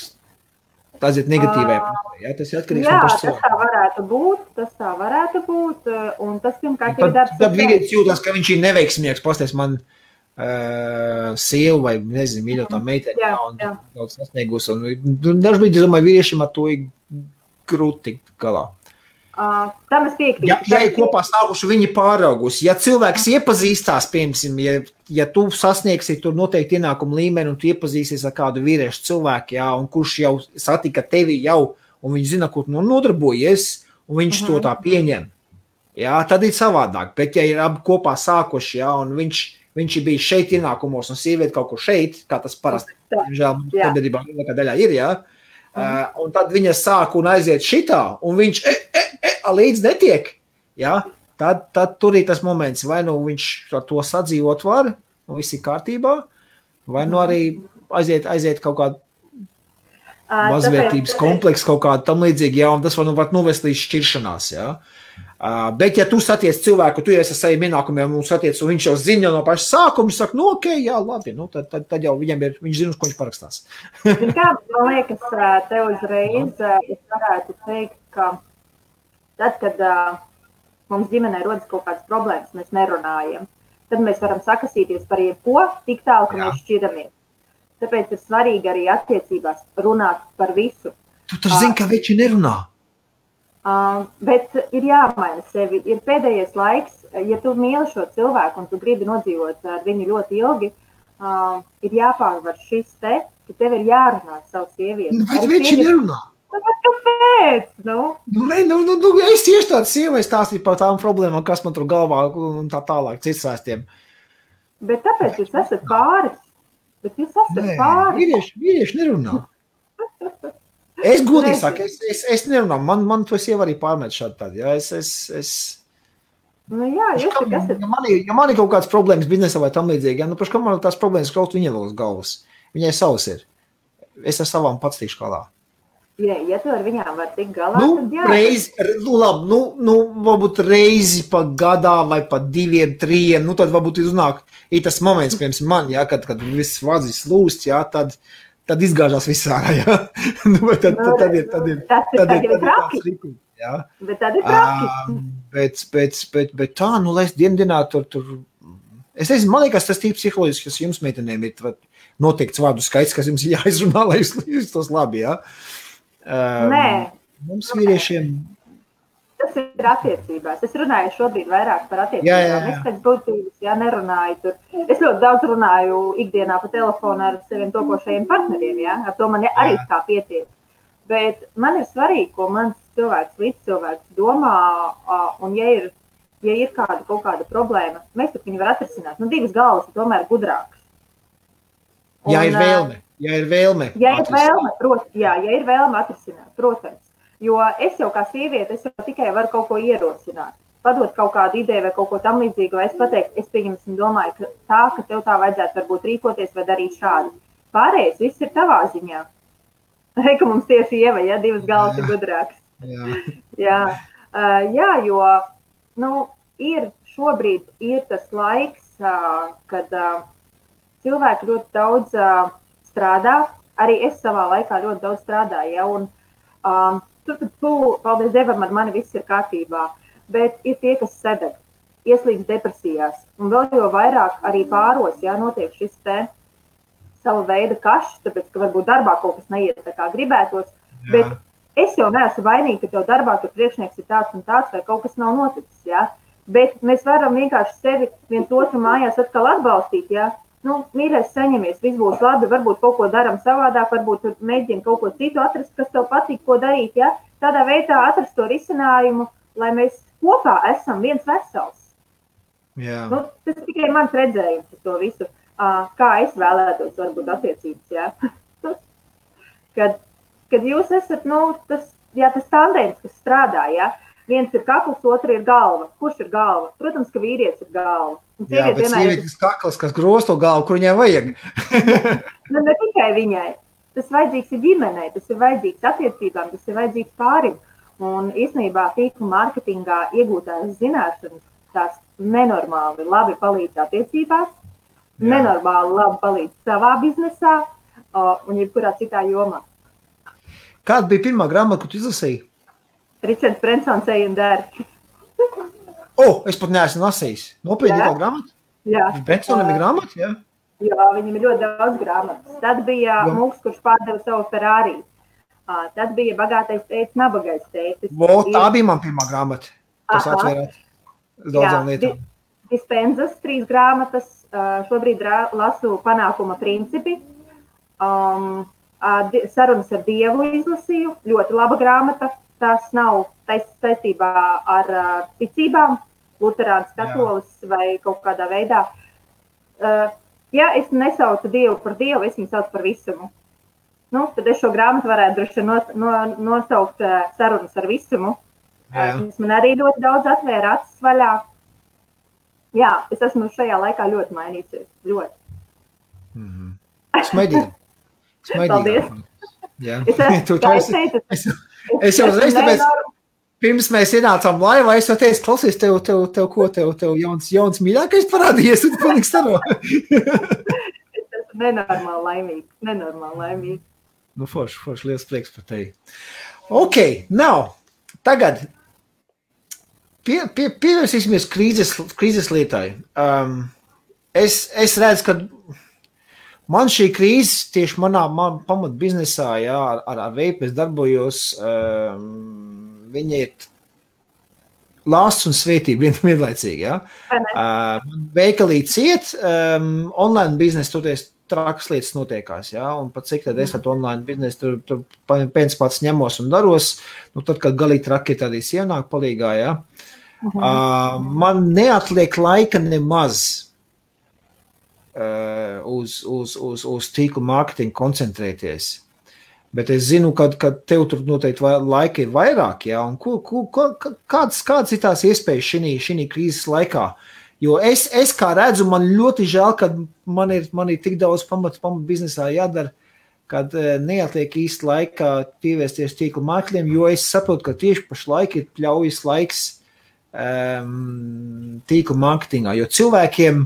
tas ir negatīvai. Jā, tas ir atkarīgs no paša cilvēka. Jā, tas tā varētu būt, un tas pirmkārt ir darbs. Tad vīrietis jūtas, ka viņš ir neveiksmīgs, pasties man sievu vai, nezinu, mīļotā meiteni, un daudz sasniegus. Dažbrīd, es domāju, vīriešiem ar to ir grūti galā. Tam es piekrītu. Ja ir kopā stāvuši, viņi pāraugusi. Ja cilvēks iepazīstās, piemēram, ja tu sasniegsi tur noteikti ienākumu līmeni un tu iepazīsies ar kādu vīriešu cilvēku, jā, un kurš jau satika tevi jau, un viņš zina, kur tu nodarbojies, un viņš to tā pieņem, jā, tad ir savādāk. Bet ja ir abi kopā sākuši, jā, un viņš ir bijis šeit ienākumos un sievieti kaut kur šeit, kā tas parasti, žēl, sabiedrībā lielākā daļā ir, jā, un tad viņa sāk un aiziet šitā, un viņš līdz netiek, jā, tad tur ir tas moments, vai nu viņš ar to sadzīvot var, un viss ir kārtībā, vai nu arī aiziet kaut kādu mazvērtības kompleksu, kaut kādu tam līdzīgi, jā, un tas var novest līdz šķiršanās, jā. Bet, ja tu saties cilvēku, tu esi ar saviem ienākumiem un saties, un viņš jau zina no paša sākuma, saka, nu, ok, jā, labi, nu, tad jau viņš zina, uz ko viņš parakstās. Kā, man liekas, te uzreiz es varētu teikt, ka tad, kad mums ģimenē rodas kaut kādas problēmas, mēs nerunājam, tad mēs varam sakasīties par jebko tik tālu, ka mēs šķiramies. Tāpēc ir svarīgi arī attiecībās runāt par visu. Tu taču zini, ka veči nerunā. Bet ir jāmaina sevi. Ir pēdējais laiks, ja tu mīli šo cilvēku un tu gribi nodzīvot ar viņu ļoti ilgi, ir jāpārvar šis te, ka tev ir jārunā savu sievieti. Bet veči nerunā. Kāpēc? Es tieši tādu sievai stāstīju par tām problēmām, kas man tur galvā un tā tālāk, cits stāstiem. Bet tāpēc jūs esat pāris. Bet jūs esat pāris. Vīrieši nerunā. Es godīgi saku, es nerunā. Man to sieva arī pārmet šādi tādi. Jā, nu jā, jūs tik esat. Ja man ir kaut kādas problēmas biznesā vai tam līdzīgi, ja, nu paši, kā man tās problēmas kaut viņai vēl uz galvas. Viņai savas ir. Es ar savām pats tikšu galā. Ja tu ar viņām var tikt galā, tad jā. Varbūt reizi pa gadā vai pa 2, 3, nu tad varbūt ir tas moments, piemēram, man, jā, kad viss vadzis lūst, jā, tad izgāžās viss ārā, jā. Tad ir traki. Jā. Bet tad ir traki. Bet tā, nu, lai es dienā tur. Es nezinu, man liekas, tas tīri psiholoģiski, kas jums meitenēm ir noteikts vārdu skaits, kas jums jāizrunā, lai jūs tos labi, jā. Nē. Mums vīriešiem. Tas ir attiecībās. Es runāju šobrīd vairāk par attiecībām. Es pēc būtības, nerunāju tur. Es ļoti daudz runāju ikdienā pa telefonu ar saviem topošajiem partneriem, jā. Ar to man arī kā pietiek. Bet man ir svarīgi, ko mans līdzcilvēks domā, un ja ir kaut kāda problēma, mēs tur viņu var atrisināt. Nu, divas galvas ir tomēr gudrākas. Ja ir vēlme. Ja ir vēlme atrisināt, protams. Jo es jau kā sieviete, es jau tikai varu kaut ko ierosināt. Padot kaut kādu ideju vai kaut ko tam līdzīgu, vai es pateiktu, es pieņemsim domāju, ka tev tā vajadzētu varbūt rīkoties vai darīt šādi. Pārējais viss ir tavā ziņā. Ka mums tieši Ieva, ja, divas galvas ir gudrākas. Jā, jo šobrīd ir tas laiks, kad cilvēki ļoti daudz strādā. Arī es savā laikā ļoti daudz strādāju, ja, un paldies Dievam, ar mani viss ir kārtībā. Bet ir tie, kas sedeg, ieslīdz depresijās. Un vēl jau vairāk arī pāros, ja, notiek šis te sava veida kašs, tāpēc, ka varbūt darbā kaut kas neiet tā kā gribētos. Jā. Bet es jau neesmu vainīga, ka tev darbā tur priekšnieks ir tāds un tāds, vai kaut kas nav noticis, ja. Bet mēs varam vienkārši sevi viens otru mājās atkal atbalstīt, ja. Nu, mīļais, saņemies, viss būs labi, varbūt kaut ko daram savādāk, varbūt mēģina kaut ko citu atrast, kas tev patīk, ko darīt, ja. Tādā veidā atrast to risinājumu, lai mēs kopā esam viens vesels. Jā. Nu, tas tikai mans redzējums par to visu, kā es vēlētos varbūt attiecības, ja. Kad jūs esat, tas tandēms, kas strādā, ja. Viens ir kakls, otrs ir galva. Kurš ir galva? Protams, ka vīrietis ir galva. Jā, bet sievietes kakls, kas gros to galvu, kur viņai vajag. Ne tikai viņai. Tas vajadzīgs ir ģimenei, tas ir vajadzīgs attiecībām, tas ir vajadzīgs pārim. Un īstenībā tīkla mārketingā iegūtās zināšanas, tās nenormāli labi palīdz attiecībās, nenormāli labi palīdz savā biznesā un jebkurā citā jomā. Kāda bija pirmā grāmata, ko tu izlasīji? Ričards Brensons Ej un dari. Es pat neesmu lasījis. Nopietni tā grāmata? Jā. Brensonam ir grāmata, jā? Jā, viņam ir ļoti daudz grāmatas. Tad bija Mūks, kurš pārdeva savu Ferrari. Tad bija Bagātais tētis, Nabagais tētis. Tā bija man pirmā grāmata. Tas atvērāt daudzām lietām. Dispenzas 3 grāmatas. Šobrīd lasu Panākuma principi. Sarunas ar Dievu izlasīju. Ļoti laba grāmata. Tas nav saistībā ar ticībām, luterāns, katolis vai kaut kādā veidā. Ja es nesaucu Dievu par Dievu, es viņu saucu par visumu. Tad es šo grāmatu varētu droši nosaukt Sarunas ar visumu. Tas man arī ļoti daudz atvēra acis vaļā. Jā, es esmu šajā laikā ļoti mainījusies. Ļoti. Smaidīgi. Paldies. Jā. Es jau uzreiz, tāpēc, pirms mēs ienācām laivā, es jau teicu, klausies, tev jauns mīļākais parādījies, un tu palīgs staro. Es esmu nenormāli laimīgi. Forši, liels prieks par tevi. Tagad pievērsīsimies krīzes lietai. Es redzu, ka man šī krīze tieši manā pamat biznesā, ar veipu es darbojos, viņa ir lāsts un svētība vienlaicīgi, veikalī ciet, online biznesa toties trakas lietas notiekās, un pat cik tad es ar online biznesu tur pēc pats ņemos un daros, tad, kad galīgi traki tādīs ienāk palīgā, man neatliek laika nemaz uz tīklu mārketingu koncentrēties. Bet es zinu, ka tev tur noteikti laika ir vairāk, un kādas ir tās iespējas šī krīzes laikā? Jo es kā redzu, man ļoti žēl, ka man ir tik daudz pamat biznesā jādara, kad neatliek īsti laikā pievērsties tīklu mārketingam, jo es saprotu, ka tieši pašlaik ir pļaujas laiks tīklu mārketingā, jo cilvēkiem,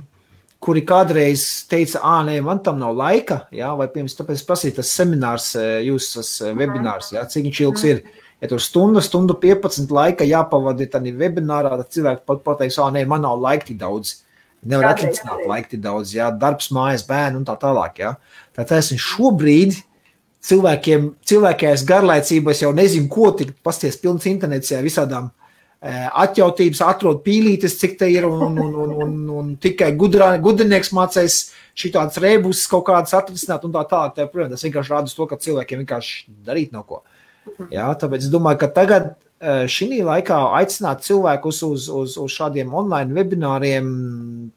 kuri kādreiz teica, nē, man tam nav laika, vai pirms tāpēc prasīt tas seminārs, tas webinārs, cik viņš ilgs ir. Ja tur stundu 15 laika jāpavadi tādā webinārā, tad cilvēki pateiks, nē, man nav laika tik daudz. Nevar atlicināt laika tik daudz, darbs, mājas, bērni un tā tālāk. Tātad šobrīd cilvēkajās garlaicībās jau nezinu, ko tik pasties pilns internets, visādām atjautības, atrod pīlītes, cik te ir, un tikai gudrinieks mācēs šitādas rēbus kaut kādas atrisināt un tā tālāk. Protams, tas vienkārši rāda to, ka cilvēkiem vienkārši darīt nav ko. Tāpēc es domāju, ka tagad šī laikā aicināt cilvēkus uz šādiem online webināriem,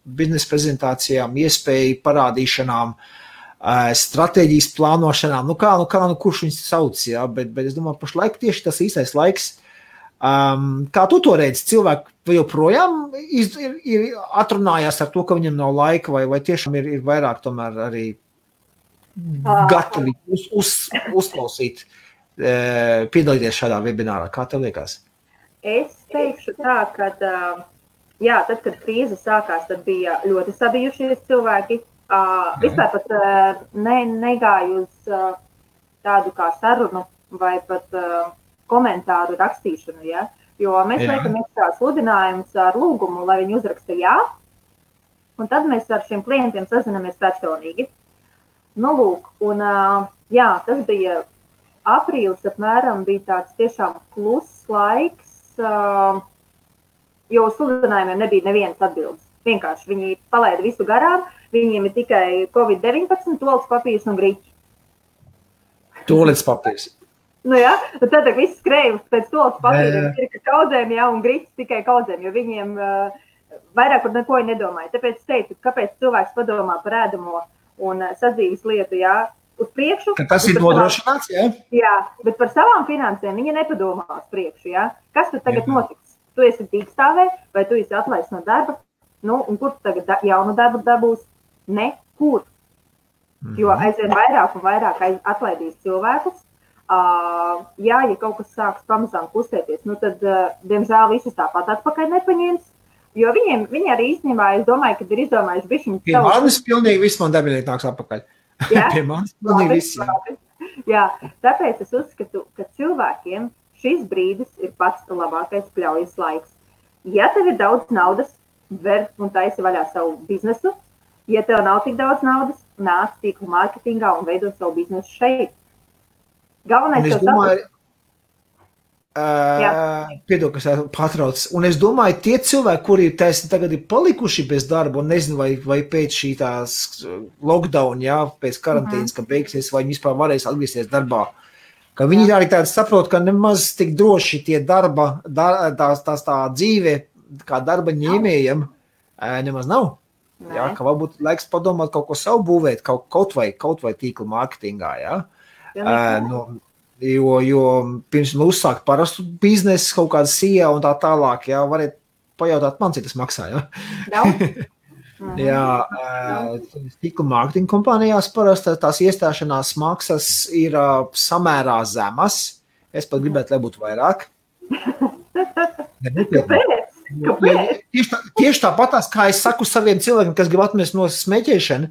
biznesa prezentācijām, iespēju parādīšanām, stratēģijas plānošanām, kurš viņus sauc, bet es domāju, pašlaik tieši tas īstais laiks. Kā tu to redzi, cilvēki joprojām ir atrunājās ar to, ka viņam nav laika, vai tiešām ir vairāk tomēr arī gatavi uzklausīt, piedalīties šādā webinārā? Kā tev liekas? Es teikšu tā, ka tad, kad krīze sākās, tad bija ļoti sabijušies cilvēki. Vispār pat negāju uz tādu kā sarunu vai pat komentāru rakstīšanu, jo mēs liekam iekšā sludinājumus ar lūgumu, lai viņi uzraksta jā, un tad mēs ar šiem klientiem sazinamies personīgi. Tas bija aprīlis apmēram, bija tāds tiešām kluss laiks, jo sludinājumiem nebija nevienas atbildes. Vienkārši viņi palaida visu garām, viņiem ir tikai COVID-19, toaletes papīrs un griķi. Toaletes papīrs. Tad viss skrēja pēc toaletes papīriem, ir kaudzēm, un griķis tikai kaudzēm, jo viņiem vairāk par neko nedomāja. Tāpēc es teicu, kāpēc cilvēks padomā par ēdamo un sadzīves lietu, uz priekšu. Tas ir nodrošināts, jā? Jā, bet par savām finansēm viņa nepadomā uz priekšu, jā? Kas tad tagad notiks? Tu esi tīkstāvē, vai tu esi atlaists no darba? Nu, un kur tu tagad jaunu darbu dabūs? Nekur. Jo aizvien vairāk un vairāk atlaidīs cilvēkus. Jā, ja kaut kas sāks pamazām kustēties, nu tad, diemžēl, visus tāpat atpakaļ nepaņems. Jo viņi arī īstenībā, es domāju, kad ir izdomājuši bišķiņu... Pie manis pilnīgi viss man darbinieki nāks atpakaļ. Jā? Pie manis pilnīgi viss, jā. Jā, tāpēc es uzskatu, ka cilvēkiem šis brīdis ir pats labākais pļaujas laiks. Ja tev ir daudz naudas, ver un taisi vaļā savu biznesu. Ja tev nav tik daudz naudas, nāc tīklu mārketingā un veido savu biznesu šeit. Galvenais tev saprast. Piedod, kas patrauc. Un es domāju, tie cilvēki, kuri tagad ir palikuši bez darba un nezinu, vai pēc šī tās lockdown, jā, pēc karantīnas, ka beigsies, vai viņi vispār varēs atgriezties darbā, ka viņi arī tādi saprot, ka nemaz tik droši tie darba, tā dzīve, kā darba ņēmējiem, nemaz nav. Jā, ka varbūt laiks padomāt kaut ko savu būvēt, kaut vai tīkla mārketingā, jā. Jo pirms uzsākt parastu biznesu, kaut kāda SEO un tā tālāk, jā, variet pajautāt man, cik tas maksā, jā. Jā, tīkla mārketinga kompānijās parasti tās iestāšanās maksas ir samērā zemas. Es pat gribētu, lai būtu vairāk. Tieši tāpatās, kā es saku saviem cilvēkiem, kas grib atmest no smēķēšana,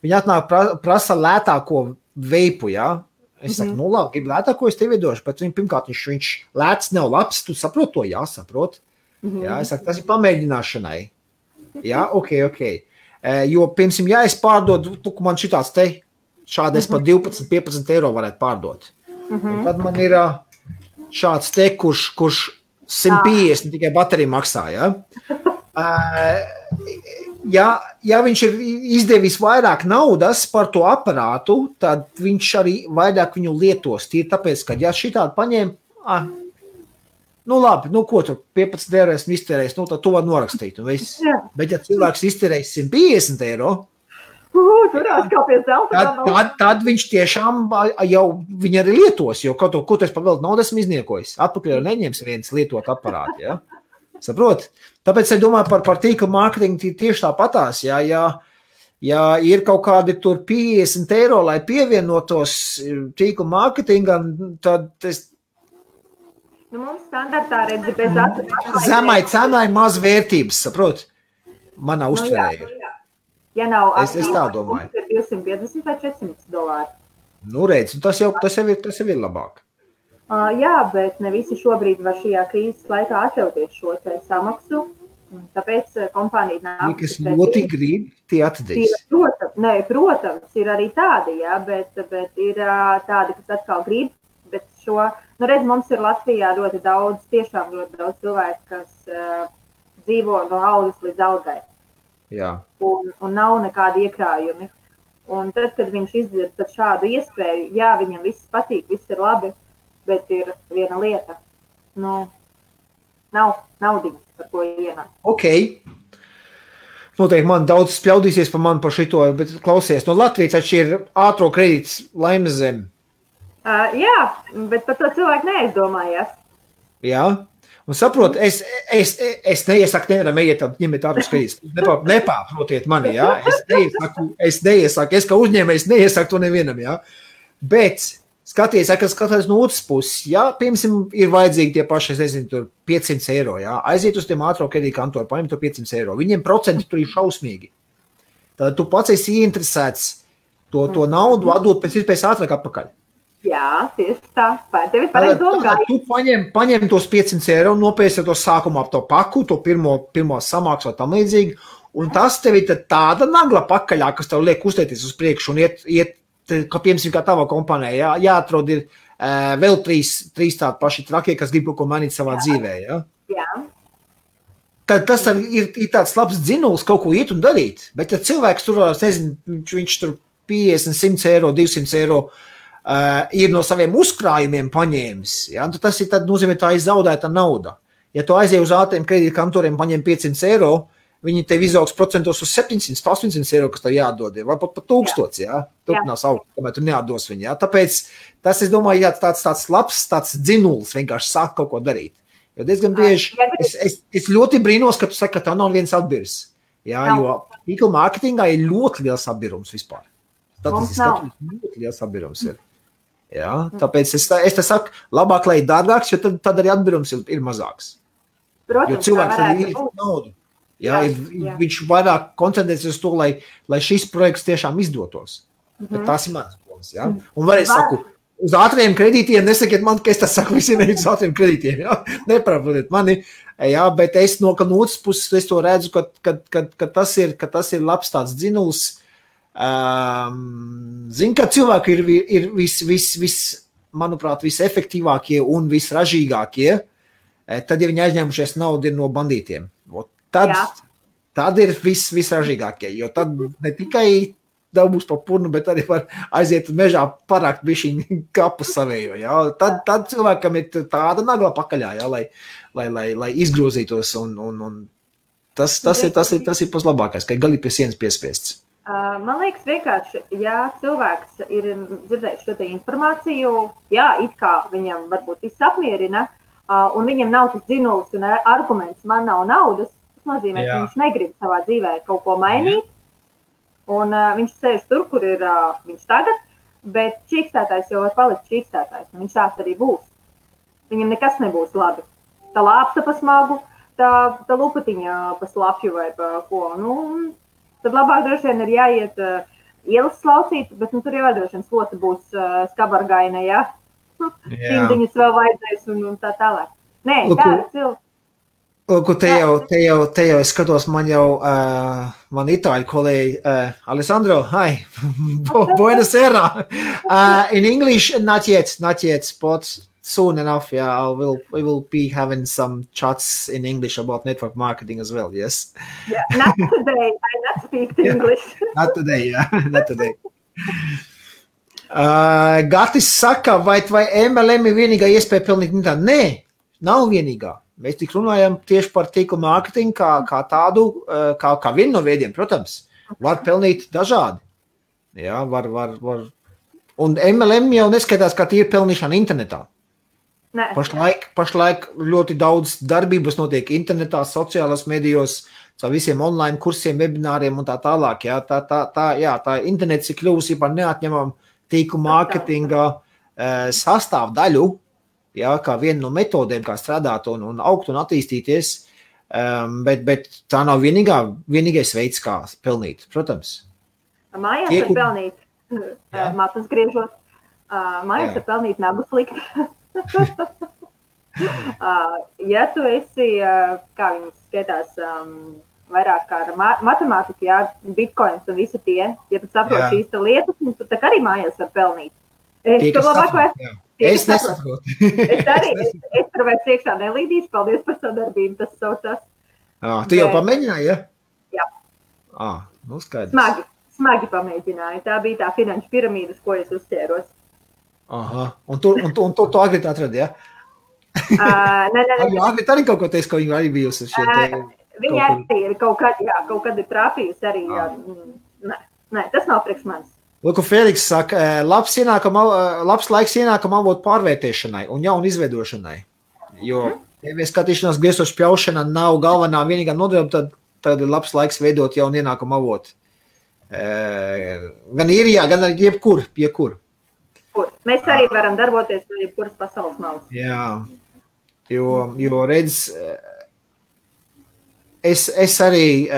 viņi atnāk prasa lētāko veipu, jā. Es saku, nu labi, gribu lētāko, es tev iedošu, bet pirmkārt viņš lēts nav labs, tu saprot to, jā, saprot. Jā, es saku, tas ir pamēģināšanai. Jā, ok. Jo, piemēram, ja es pārdodu, man šitāds te, šādi es par 12-15 eiro varētu pārdot. Un tad man ir šāds te, kurš 150 tikai baterija maksā, jā. Ja viņš ir izdevis vairāk naudas par to aparātu, tad viņš arī vairāk viņu lietos. Tīri tāpēc, ka ja šitādi paņem, nu labi, nu ko tu 15 eiro esmu iztērējis, nu tad to var norakstīt. Bet ja cilvēks iztērējis 150 eiro, tad viņš tiešām jau viņi arī lietos, jo kaut ko tu esi pavēlt naudu esmu izniekojis. Atpakaļ jau neņems viens lietot aparātu, ja? Saprot? Tāpēc es domāju par tīkla mārketingu tieši tāpatās, ja ir kaut kādi tur 50 eiro, lai pievienotos tīkla mārketingam, tad es... Nu, mums standartā redzi bez Zemai cenai maz vērtības, saprot? Manā uztverē ir. Ja nav es tā domāju. 250 vai $400. Nu, redz, tas jau ir labāk. Jā, bet ne visi šobrīd var šajā krīzes laikā atļauties šo samaksu. Tāpēc kompānija nāk. Kas ļoti grib, tie atdīs. Protams, ir arī tādi, jā, bet ir tādi, kas atkal grib. Bet redz, mums ir Latvijā ļoti daudz cilvēku, kas dzīvo no algas līdz algai. Jā. Un nav nekādi iekrājumi. Un tad, kad viņš izdzird šādu iespēju, jā, viņam viss patīk, viss ir labi. Bet ir viena lieta, nav naudiņas, par ko ienāk. Ok. Noteikti man daudz spļaudīsies par mani par šito, bet klausies, no Latvijas taču ir ātro kredīts Laimes zem. Jā, bet par to cilvēku neaizdomājās. Jā, un saprot, es neiesaku nevaram ejiet ņemiet ātros kredītus. Nepārprotiet mani, jā. Es neiesaku, es kā uzņēmējs neiesaku to nevienam, jā. Bet... Skaties, kas skatās no otras puses, ja, piemēram, ir vajadzīgi tie paši, es nezinu, tur 500 eiro, ja, aiziet uz tiem ātro kredītu kantoru, paņem to 500 eiro, viņiem procenti tur ir šausmīgi. Tad tu pats esi ieinteresēts to naudu atdot pēc iespējas ātrāk atpakaļ. Jā, tieši tā. Tev ir pareizi domāt. Tu paņem tos 500 eiro, nopēsi to sākumā ap to paku, to pirmo samaksu vai tam līdzīgi, un tas tev ir tāda nagla pakaļā, kas tev liek uztēties uz priekšu un iet kā piemēram, kā tavā kompānijā, jāatrod ir vēl trīs tādi paši trakie, kas grib kaut ko mainīt savā dzīvē, jā? Jā. Tad tas ir tāds labs dzinuls kaut ko iet un darīt, bet ja cilvēks tur, nezinu, viņš tur 50, 100 eiro, 200 eiro ir no saviem uzkrājumiem paņēmis, jā, tad tas ir tad nozīmē tā izzaudēta nauda. Ja tu aizies uz ātriem kredītu kantoriem, paņem 500 eiro, viņi tev izaugs procentos uz 700, 800 eiro, kas tev jādod, vai pat 1000, jā. Turpinās augt, kamēr tu neatdos viņu, jā. Tāpēc tas, es domāju, jā, tāds labs, tāds dzinulis vienkārši sāk kaut ko darīt. Jo diezgan bieži, es ļoti brīnos, ka tu saki, ka tā nav viens atbirs. Jā, jo tīkla mārketingā ir ļoti liels atbirums vispār. Statistiski ļoti liels atbirums ir. Jā, tāpēc es te saku, labāk, lai ir dārgāks, jo tad arī atbirums ir mazāks. Protams, jo cilvēks arī ir naudu. Jā, viņš vairāk koncentrēsies uz to, lai šis projekts tiešām izdotos. Bet tās ir manas domas, jā. Un varēs saku, uz ātriem kredītiem nesakiet man, ka es tas saku visiem uz ātriem kredītiem, jā. Neprāpodiet mani, jā, bet es no otras puses es to redzu, ka tas ir labs tāds dzinuls. Zinu, ka cilvēki ir manuprāt, visefektīvākie un visražīgākie, tad, ja viņi aizņēmušies naudu no bandītiem. Tad ir visražīgākie, jo tad ne tikai dabūs pa purnu, bet arī var aiziet mežā parākt bišķiņu kapu savējo. Jā. Tad cilvēkam ir tāda nagla pakaļā, jā, lai izgrozītos. Un tas ir pats labākais, ka gali pie sienas piespiests. Man liekas vienkārši, ja cilvēks ir dzirdējis šo te informāciju, jā, it kā viņam varbūt viss apmierina, un viņam nav tas dzinulis un arguments, man nav naudas, tas nozīmē, ka viņš negrib savā dzīvē kaut ko mainīt, un viņš sēž tur, kur ir viņš tagad, bet čīkstētājs jau var palikt čīkstētājs, un viņš tāds arī būs. Viņam nekas nebūs labi. Tā lāpsta pa smagu, tā lupatiņa pa slapju vai pa ko. Tad labāk droši vien ir jāiet ielas slaucīt, bet tur jau droši vien slota būs skabargaina, jā. Cimdiņas vēl vajadzēs un tā tālāk. Nē, tā ir cilvēks. Te jau es skatos, man itāļu kolēģi, Alessandro, hi, buenas era. In English, not yet, but soon enough, yeah, we will be having some chats in English about network marketing as well, yes? Yeah, not today, I not speak English. Not today, yeah, not today. Gatis saka, vai MLM ir vienīgā iespēja pelnīt intā? Nē, nav vienīgā. Mēs tik runājam tieši par tīkla mārketingu kā tādu, kā vienu no veidiem, protams. Var pelnīt dažādi. Jā, var. Un MLM jau neskaitās, kā tie ir pelnīšana internetā. Ne. Pašlaik ļoti daudz darbības notiek internetā, sociālās medijos, caur visiem online kursiem, webināriem un tā tālāk. Jā, tā internets ir kļuvusi par neatņemamu tīkla mārketinga sastāvdaļu. Jā, kā viena no metodēm, kā strādāt un augt un attīstīties, bet tā nav vienīgais veids, kā pelnīt, protams. Mājās var pelnīt, matus griežot, mājās var pelnīt nagu slikt. Ja tu esi, kā viņas skaitās, vairāk kā ar matemātiku, jā, bitcoins un visi tie, ja tu saproti šīs lietas, tad tā arī mājās var pelnīt. Es nesaprotu. Es tur vairs iekšā nelīdīšu, paldies par sadarbību, tas saucās. Tu jau pamēģināji, ja? Jā. Skaidrs. Smagi pamēģināju. Tā bija tā finanšu piramīdas, ko es uzķēros. Aha, un tu Agrit atradi, ja? Nē. Agrit arī kaut ko teiks, ka viņa arī bijusi šeit. Viņa arī ir kaut kad ir trāpījusi arī. Nē, tas nav priekš manis. Lūk, Feliks saka, labs laiks ienākuma avotu pārvērtēšanai un jaunu izveidošanai. Jo, ja skatīšanās griestošu pļaušana nav galvenā vienīgā nodarba, tad ir labs laiks veidot jaunu ienākuma avotu. Gan īrijā, gan arī jebkur. Mēs arī varam darboties no jebkuras pasaules malas. Jā, jo redz, es arī...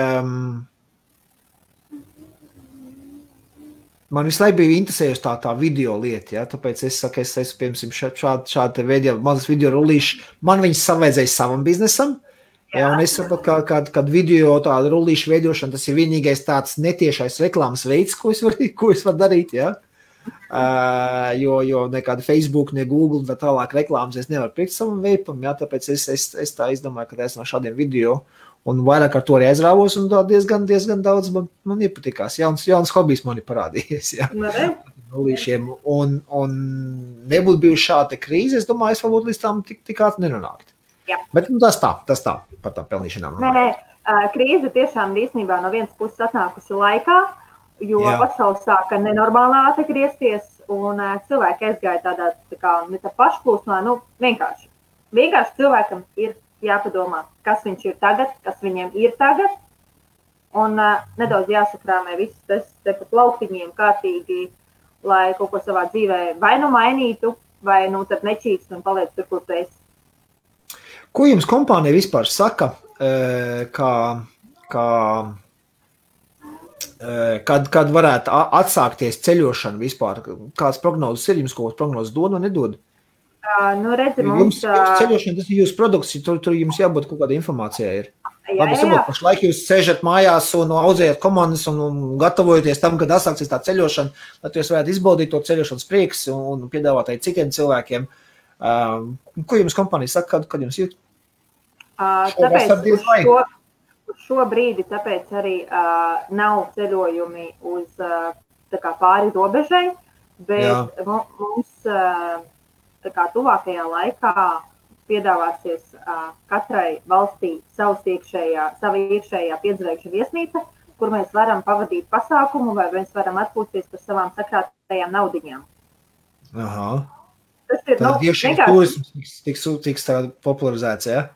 Man visu laiku bija interesējusi tā video lieta, ja? Tāpēc es saku, es piemēram, šādi veidi, mazas video rullīši, man viņas savaidzēja savam biznesam, ja? Un es saprotu, kad video tāda rullīša veidošana, tas ir vienīgais tāds netiešais reklāmas veids, ko es varu darīt, ja? Jo nekāda Facebook, ne Google, tā tālāk reklāmas es nevaru priekt savam veipam, ja? Tāpēc es tā izdomāju, ka es no šādiem video un vairāk ar to arī aizrāvos, un diezgan daudz man iepatikās. Jauns hobijs man ir parādījies. Jā. Un nebūtu bijuši šāda krīze, es domāju, es varbūt līdz tām tik ātri nenonākt. Jā. Bet tas tā, par tām pelnīšanām. Nē, krīze tiešām īstenībā no vienas puses atnākusi laikā, jo pasaule sāka nenormāli ātri griezties, un cilvēki aizgāja tādā tā kā ne tā pašplūsmā, vienkārši cilvēkam ir jāpadomā, kas viņš ir tagad, kas viņiem ir tagad, un nedaudz jāsakrāmē viss tas te pa plauktiņiem kārtīgi, lai kaut ko savā dzīvē vai nu mainītu, vai nu tad nečīkst un paliec tur, kur tu esi. Ko jums kompānija vispār saka, kad varētu atsākties ceļošana vispār? Kāds prognozes ir? Jums kaut prognozes dod vai nedod? Redzi, jums ceļošana, tas ir jūsu produkts, tur jums jābūt kaut kāda informācijā ir. Labi, saprot, pašlaik jūs sēžat mājās un audzējat komandas un gatavojaties tam, kad atsāksies tā ceļošana, lai jūs varētu izbaudīt to ceļošanas prieks un piedāvāt arī citiem cilvēkiem. Ko jums kompānija saka, kad jums jūt? Tāpēc šo brīdi tāpēc arī nav ceļojumi uz tā kā pāri robežai, bet mums tā kā tuvākajā laikā piedāvāsies katrai valstī savu iekšējā piedzvaigžņu viesnīca, kur mēs varam pavadīt pasākumu vai mēs varam atpūsties par savām sakrātajām naudiņām. Aha. Tas ir, tad iekšējais turisms tiks popularizēts, ja?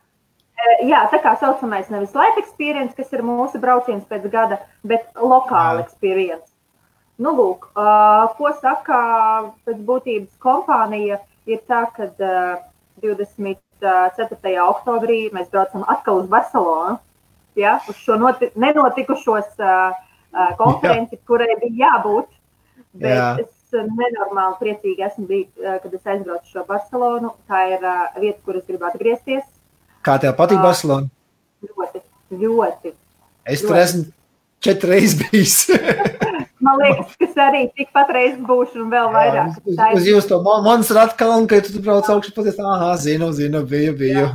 Jā, tā kā saucamais nevis life experience, kas ir mūsu brauciens pēc gada, bet lokāla experience. Lūk, ko saka pēc būtības kompānija, ir tā, ka 24. oktobrī mēs braucam atkal uz Barcelonu, uz šo nenotikušos konferenci, kurai bija jābūt, bet es nenormāli priecīgi esmu bijis, kad es aizbraucu šo Barcelonu. Tā ir vieta, kur es gribu atgriezties. Kā tev patīk Barcelona? Ļoti. Es tur esmu 4 reizes bijis. Man liekas, ka arī tikpat reizes būšu un vēl vairāk. Uz jūs to Monserratu kalnu, ka tu brauc augšu paties, zinu, biju.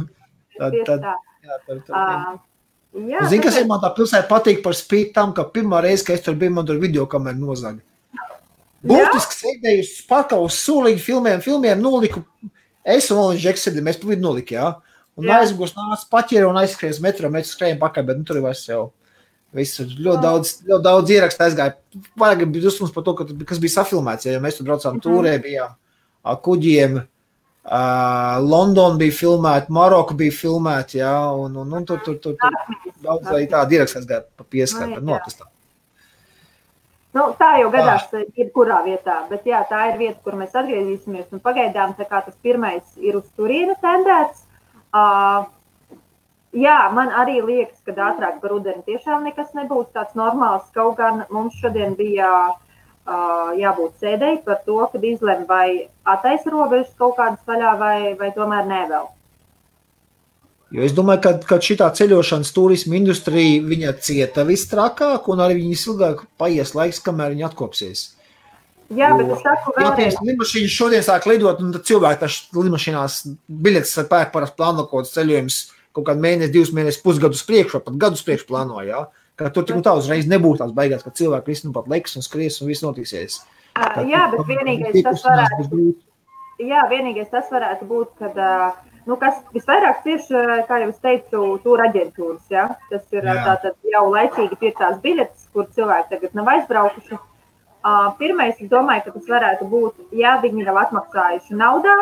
Zini, kas ir man tā pilsēta patīk par spīti tam, ka pirmā reize, ka es tur biju, man tur videokameru nozaga. Būtiski sēdēju uz pakalu, uz sulīgi filmiem noliku. Es un Olins Džeks sēdēju, mēs pa vidu noliki, Un aizgūs nāc paķēru un aizskries metro, mēs skrējam pakaļ, bet tur vairs jau. Visu ļoti daudz ierakstu aizgāja. Vajag bija dusmas par to, kas bija safilmēts, jo mēs tur braucām tūrē, bijām kuģiem, London bija filmēta, Maroka bija filmēta, un tur daudz tādi ierakstu aizgāja pa pieskatu, notastā. Tā jau gadās jebkurā vietā, bet tā ir vieta, kur mēs atgriezīsimies, un pagaidām tā kā tas pirmais ir uz turieni tendēts. Man arī liekas, ka ātrāk par rudeni tiešām nekas nebūs tāds normāls, kaut gan mums šodien bija jābūt sēdēji par to, kad izlem vai attaisa robežas kaut kādas vaļā vai tomēr ne vēl. Jo es domāju, ka šitā ceļošanas turisma industrija, viņa cieta visstrakāk un arī viņas ilgāk paies laiks, kamēr viņa atkopsies. Jā, bet es saku vēlreiz. Lidmašīnas šodien sāk lidot, un tad cilvēki taču lidmašīnās biļetes ar pērk parasti plāno kaut kāds ceļojums kaut kādu mēnesi, 2 mēnešus, pusgadus priekš, vai pat gadus priekš plāno, Ka tur tik un tā uzreiz nebūtu tās beigās, ka cilvēki visi pat leks un skries un viss notiksies. Bet vienīgais tas varētu būt, kad, kas visvairāk tieši, kā jau es teicu, tūra aģentūras, Tas ir tātad jau laicīgi pirktās biļetes, kur cilvēki tagad nav aizbraukuši. Pirmais, es domāju, ka tas varētu būt, ja viņi nav atmaksājuši naudā,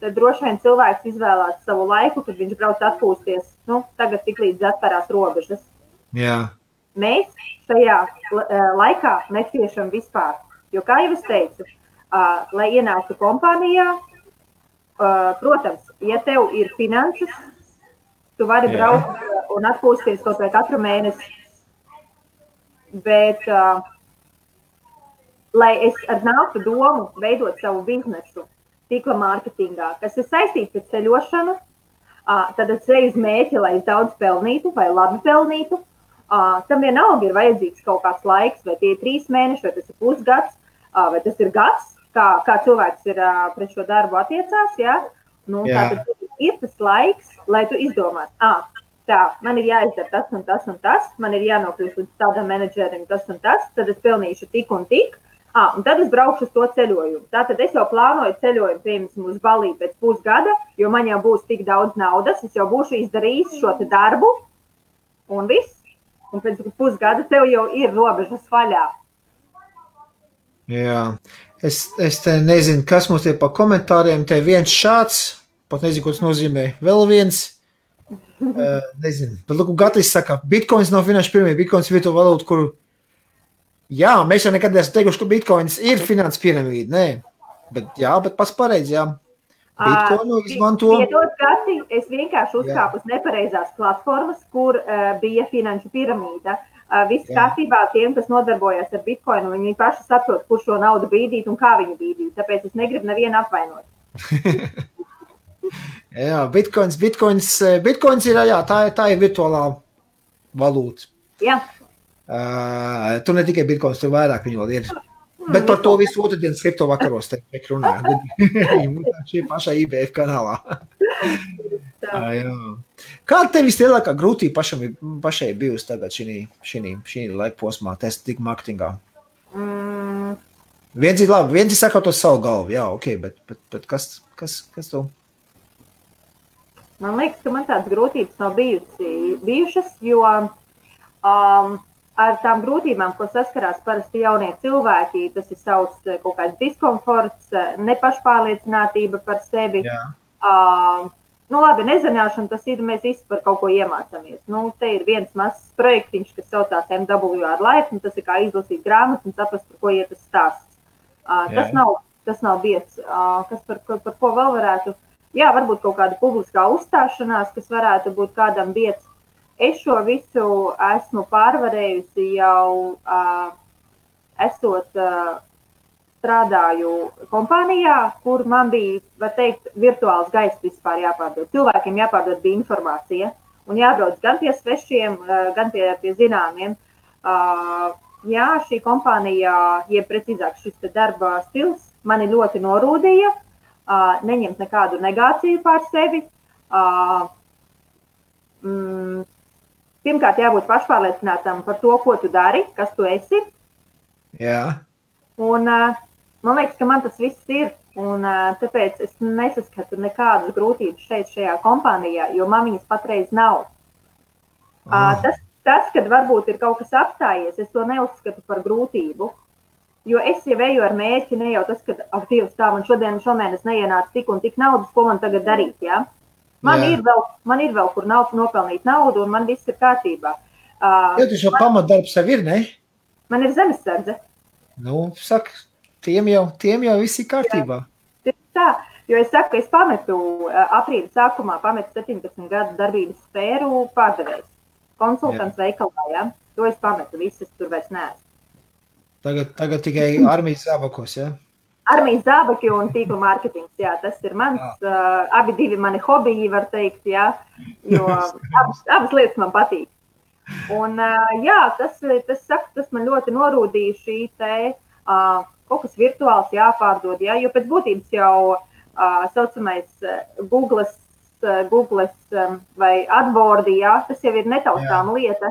tad droši vien cilvēks izvēlās savu laiku, kad viņš brauc atpūsties, tagad tik līdz atverās robežas. Jā. Mēs šajā laikā neciešam vispār, jo, kā jau es teicu, lai ienāktu kompānijā, protams, ja tev ir finanses, tu vari braukt un atpūsties kaut vai katru mēnesi, bet lai es nāktu domu veidot savu biznesu tīkla mārketingā, kas ir saistīts ar ceļošanu, tad es eju uz mēķi, lai es daudz pelnītu vai labi pelnītu. Tam vienalga ir vajadzīgs kaut kāds laiks, vai tie ir 3 mēneši, vai tas ir pusgads, vai tas ir gads, kā cilvēks ir pret šo darbu attiecās. Tātad ir tas laiks, lai tu izdomātu, man ir jāizdara tas un tas un tas, man ir jānokļūst līdz tādam menedžerim tas un tas, tad es pelnīšu tik un tik. Un tad es braukšu uz to ceļojumu. Tātad es jau plānoju ceļojumu, piemēram, uz Balī pēc pusgada, jo man jau būs tik daudz naudas, es jau būšu izdarījis šo te darbu, un viss. Un pēc pusgada tev jau ir robežas vaļā. Jā. Es te nezinu, kas mums ir pa komentāriem. Te viens šāds, pat nezinu, ko tas nozīmē. Vēl viens, nezinu. Bet, lūk, Gatis saka, Bitcoins nav finanšu piramīda, Bitcoins ir virtuāla valūta, kur, jā, mēs jau nekad esam teikuši, ka Bitcoins ir finanšu piramīda, nē. Bet pats pareizi, jā. Bitcoinu izmanto. Piedod, Gati, es vienkārši uzkāpu uz nepareizās platformas, kur bija finanšu piramīda. Viss kārtībā tiem, kas nodarbojas ar Bitcoinu, viņi paši saprot, kur šo naudu bīdīt un kā viņi bīdīt. Tāpēc es negribu nevienu apvainot. Jā, Bitcoins ir, jā, tā ir virtuālā valūta. Jā. Tu ne tikai Bitcoins, tur vairāk viņi vēl ir. Bet par to visu otrdienas kripto vakaros te runāju. Šī pašā IBF kanālā. Kāda tev vislielākā grūtība pašai bijusi tagad šī laika posmā, tik marketingā? Viens ir labi, viens ir sakot uz savu galvu, jā, ok, bet kas tu? Man liekas, ka man tādas grūtības nav bijušas, jo ar tām grūtībām, ko saskarās parasti jaunie cilvēki, tas ir savs kaut kāds diskomforts, nepašpārliecinātība par sevi. Labi, nezināšana, tas ir, mēs visi par kaut ko iemācāmies. Te ir viens mazs projektiņš, kas saucās MWR Life, un tas ir kā izlasīt grāmatu un saprast, par ko iet tas stāsts. Tas nav biedrs. Par ko vēl varētu? Jā, varbūt kaut kāda publiskā uzstāšanās, kas varētu būt kādam biedrs. Es šo visu esmu pārvarējusi jau esot strādāju kompānijā, kur man bija, var teikt, virtuāls gaiss vispār jāpārdod. Cilvēkiem jāpārdod bija informācija un jābrauc gan pie svešiem, gan pie zināmiem. Jā, šī kompānija, jeb precīzāk šis darba stils, mani ļoti norūdīja, neņemt nekādu negāciju pār sevi. Pirmkārt, jābūt pašpārliecinātam par to, ko tu dari, kas tu esi. Jā. Un man liekas, ka man tas viss ir. Un tāpēc es nesaskatu nekādas grūtības šajā kompānijā, jo man viņas patreiz nav. Tas, kad varbūt ir kaut kas apstājies, es to neuzskatu par grūtību. Jo es jau eju ar mērķi, ne jau tas, ka aktīvs tā, man šomēnes neienāca tik un tik naudas, ko man tagad darīt, jā? Man ir vēl, kur nopelnīt naudu, un man viss ir kārtībā. Ja tu šo pamatdarbs sev ir, ne? Man ir zemesardze. Saka, tiem jau viss ir kārtībā. Jā, tā, jo es saku, es pametu aprīļa sākumā, 17 gadu darbības sfēru pārdevējs. Konsultants veikalā, jā. To es pametu, visas tur vairs neesmu. Tagad tikai armijas zābakos, jā? Armijas zābaki un tīkla mārketings, jā, tas ir mans, abi divi mani hobiji, var teikt, jā, jo abas lietas man patīk. Un jā, tas man ļoti norūdīja šī te kaut kas virtuāls jāpārdod, jā, jo pēc būtības jau saucamais Googles vai AdWords, jā, tas jau ir netaustāma lieta.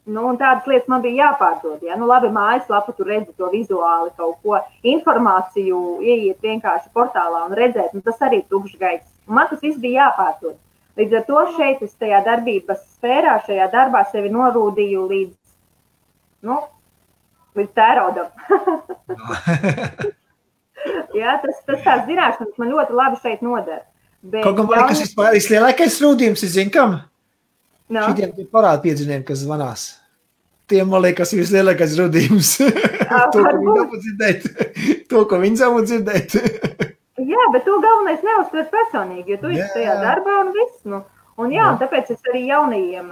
Un tādas lietas man bija jāpārdod, jā. Labi, mājaslapa, tu redzi to vizuāli kaut ko, informāciju ieiet vienkārši portālā un redzēt, tas arī tukšs gaiss. Un man tas viss bija jāpārdod. Līdz ar to šeit es tajā darbības sfērā, šajā darbā sevi norūdīju līdz tēraudam. Jā, tas tās zināšanas man ļoti labi šeit nodara. Kaut kā man, kas vispār lielākais rūdījums, es zinu, kam? Šitiem parāda piedziniem, kas zvanās. Tiem, man liekas, ir vislielākais rudījums. To, ko viņi savu dzirdēt. Jā, bet to galvenais neuztver personīgi, jo tu esi tajā darbā un viss. Un tāpēc es arī jaunajiem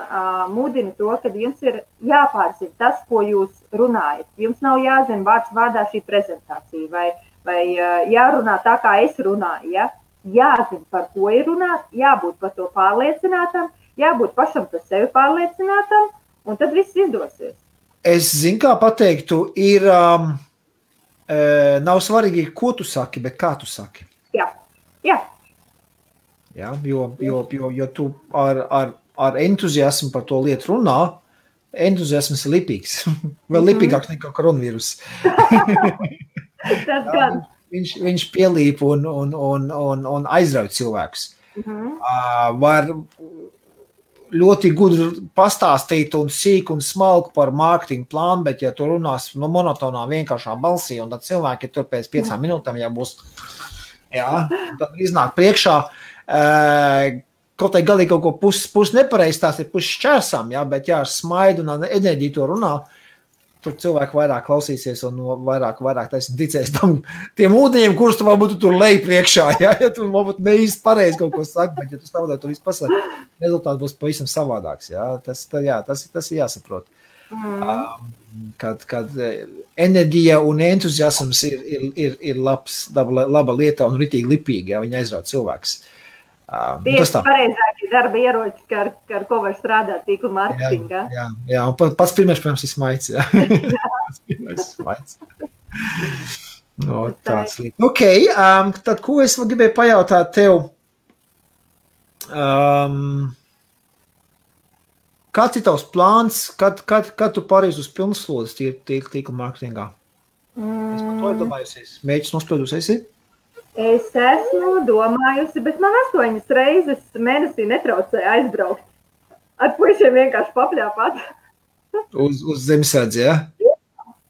mudinu to, ka jums ir jāpārzina tas, ko jūs runājat. Jums nav jāzina vārds vārdā šī prezentācija vai jārunā tā, kā es runāju. Ja? Jāzina, par ko ir runāt, jābūt par to pārliecinātam, jābūt pašam par sevi pārliecinātam, un tad viss izdosies. Es zinu, kā pateiktu, ir nav svarīgi, ko tu saki, bet kā tu saki. Jā. Jā, jo tu ar entuziasmu par to lietu runā, entuziasms ir lipīgs. Vēl lipīgāks nekā koronavīrus. Tas gan. Viņš pielīp un aizrauj cilvēkus. ļoti gudri pastāstīt un sīk un smalku par mārketinga plānu, bet ja tu runās no monotonā vienkāršā balsī, un tad cilvēki tur pēc 5 minūtēm jau būs, tad iznāk priekšā, kaut tai galīgi kaut ko pus nepareiz, tās ir pus šķērsām, bet ar smaidu un enerģiju to runā, tur cilvēki vairāk klausīsies un vairāk ticēs tiem ūdeņiem, kurus tu varbūt tur lej priekšā, ja tu varbūt neīsti pareizi kaut ko saki, bet ja tu stāvodē to visu pasaki, rezultāts būs pavisam savādāks, tas ir jāsaprot. Kad enerģija un entuziasms ir laba lieta un ritīgi lipīgi, viņi aizrauj cilvēks. Tieši pareizākie darba ieroči, ar ko var strādāt tīkla mārketingā. Jā, un pats pirmais, protams, ir smaids. Pats pirmais smaids. No, tāds līdz. Ok, tad ko es vēl gribēju pajautāt tev? Kāds ir tavs plāns, kad tu pārēs uz pilnslodes tīkla mārketingā? Es par to domājusies. Mēģis nospēdusies? Es esmu domājusi, bet man 8 reizes mēnesī netraucēja aizbraukt. Ar puišiem vienkārši papļāpāt. Uz zemesardzi, ja?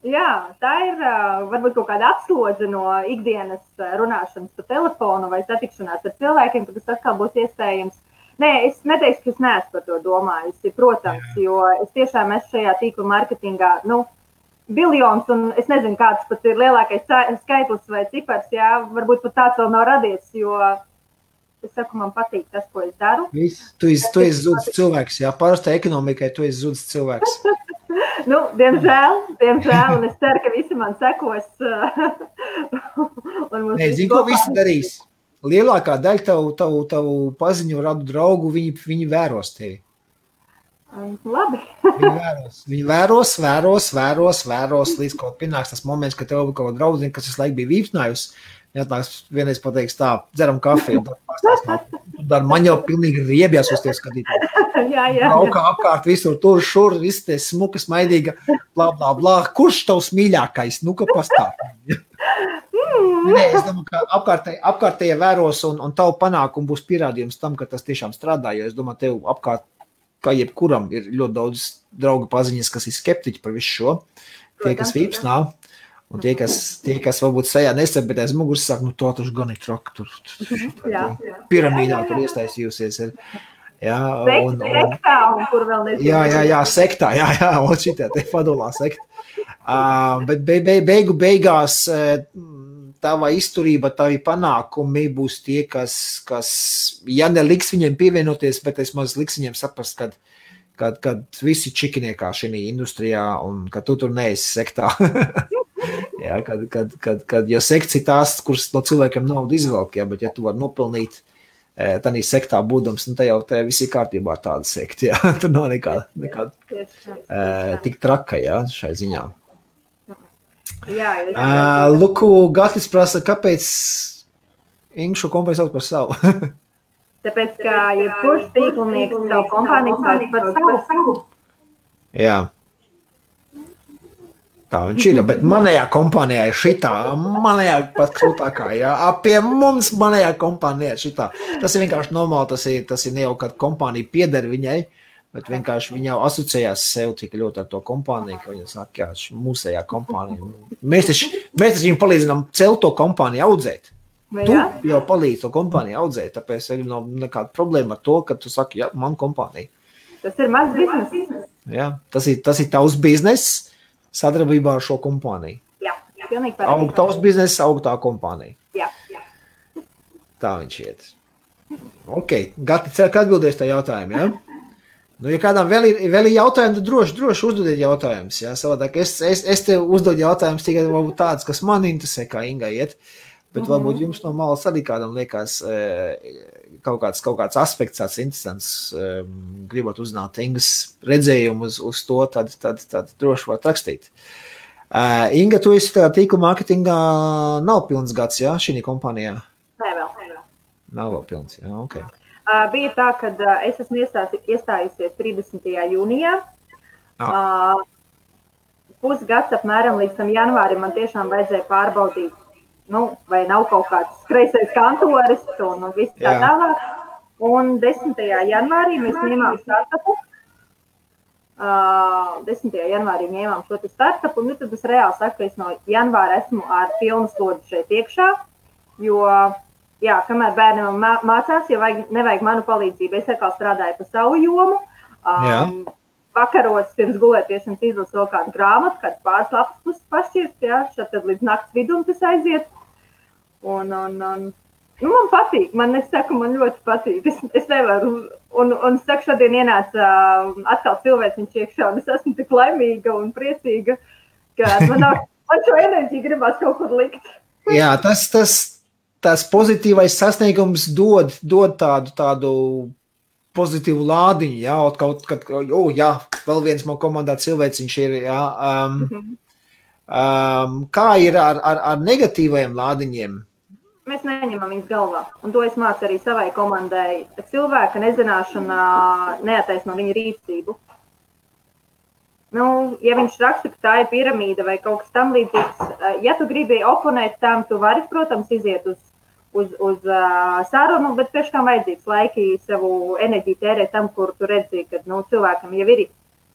Jā, tā ir varbūt kaut kāda atslodze no ikdienas runāšanas pa telefonu vai satikšanās ar cilvēkiem, kad tas atkal būs iespējams. Nē, es neteikšu, ka es neesmu par to domājusi, protams, jo es tiešām esmu šajā tīkla mārketingā, biljons, un es nezinu, kāds pat ir lielākais skaitlis vai cipars, varbūt pat tāds vēl nav radies, jo es saku, man patīk tas, ko es daru. Tu esi zudis cilvēks, parastā ekonomikai tu esi zudis cilvēks. Diemžēl, un es ceru, ka visi man sekos. Nē, zinu, ko visi darīs. Lielākā daļa tavu paziņu radu draugu, viņi vēros tevi. Labi. Viņi vēros, līdz kaut pienāks tas moments, ka tev kaut draudzini, kas visu laiku bija vīpsnājusi, jātnāks vienreiz pateiks tā, dzeram kafiju, un tad pastāstās, man jau pilnīgi riebjās uz tie skatītāji. Braukā apkārt visur, tur, šur, viss tie smuka, smaidīga, blā, kurš tavs mīļākais, ka pastāv? Nē, es domāju, ka apkārtēja vēros, un tavu panākumu būs pierādījums tam, ka tas tiešām strādā, jo es domāju, tev apkārt kā jebkuram ir ļoti daudz draugu paziņas, kas ir skeptiķi par visu šo. Tie, kas vīpsnā, un tie, kas varbūt sajā nesap, bet aiz muguras saka, to taču gan ir traki, tur piramīdā tur iestaisījusies. Sektā, un kur vēl nezinu. Jā, sektā, un šitā te fadulā sekta. Bet beigās tava izturība, tavi panākumi būs tie, kas ja neliks viņiem pievienoties, bet es maz liks viņiem saprast, kad visi čikiniekā šī industrijā un ka tu tur neesi sektā. Jo sekts ir tās, kuras no cilvēkiem naudu izvelk, bet ja tu vari nopelnīt tādā sektā būdams, tad jau te visi kārtībā tāda sekta. Tur nav nekāda tik traka šai ziņā. Luku, Gatis prasa, kāpēc Inga šo kompāniju sauc par savu? Tāpēc, ka jebkurš tīklnieks savu kompāniju sauc par savu. Jā. Tā viņš ir, bet manējā kompānijā ir šitā, manējā pat krūtākā, pie mums manējā kompānijā ir šitā. Tas ir vienkārši normāli, tas ir ne jau, kad kompānija pieder viņai, bet vienkārši viņa jau asociējās sev tik ļoti ar to kompāniju, ka viņa saka, mūsējā kompānija. Mēs taču viņam palīdzinām celt to kompāniju audzēt. Tu jau palīdzi to kompāniju audzēt, tāpēc arī nav nekāda problēma ar to, ka tu saki, man kompānija. Tas ir mazs biznes. Jā, tas ir tavs biznes sadarbībā ar šo kompāniju. Jā, pilnīgi pareizi. Aug tavs biznes, aug tā kompānija. Jā. Tā viņš iet. Ok, Gati, ceru, ka atbildēs tā jautājumu, ja? Ja kādām vēl ir jautājumi, tad droši uzdodiet jautājumus. Savādāk es tev uzdodu jautājumus tikai varbūt tāds, kas man interesē, kā Ingai iet, bet varbūt jums no malas arī kādam liekas kaut kāds aspekts, tāds interesants, gribot uzzināt Ingas redzējumu uz to, tad droši var rakstīt. Inga, tu esi tīkla mārketingā nav pilns gads, šī kompānijā? Nē, vēl. Nav vēl pilns, ok. Bija tā, ka es esmu iestājusies 30. jūnijā. Pusgads apmēram līdz tam janvārim man tiešām vajadzēja pārbaudīt, vai nav kaut kāds kreisais kantoris un viss tā tālāk. Un 10. janvārī mēs ņēmām startupu. 10. janvārī ņēmām šo startupu, un tad es reāli saku, ka es no janvāra esmu ar pilnu slodzi šeit iekšā, jo, jā, kamēr bērniem mācās, ja nevajag manu palīdzību, es atkal strādāju pa savu jomu. Vakaros pirms gulētiešanas izlasu vēl kādu grāmatu, kādu pāris lapas puses pašķirst, jā, šeit tad līdz nakts vidum tas aiziet. Un man patīk, es saku, man ļoti patīk. Es nevaru, un es saku, šodien ienāca atkal cilvēciņš iekšā, un es esmu tik laimīga un priecīga, ka man šo enerģiju gribās kaut kur likt. Jā, tas pozitīvais sasniegums dod tādu pozitīvu lādiņu, jā, kaut kad, jā, vēl viens man komandā cilvēciņš ir, jā. Kā ir ar negatīvajiem lādiņiem? Mēs neņemam viņus galvā, un to es mācu arī savai komandai. Cilvēka nezināšana neataisno viņa rīcību. Ja viņš raksta, ka tā ir piramīda vai kaut kas tam līdzīgs, ja tu gribi oponēt tam, tu vari, protams, iziet uz sarunu, bet priekškām vajadzīgs laiki savu enerģiju tērēt tam, kur tu redzi, ka cilvēkam jau ir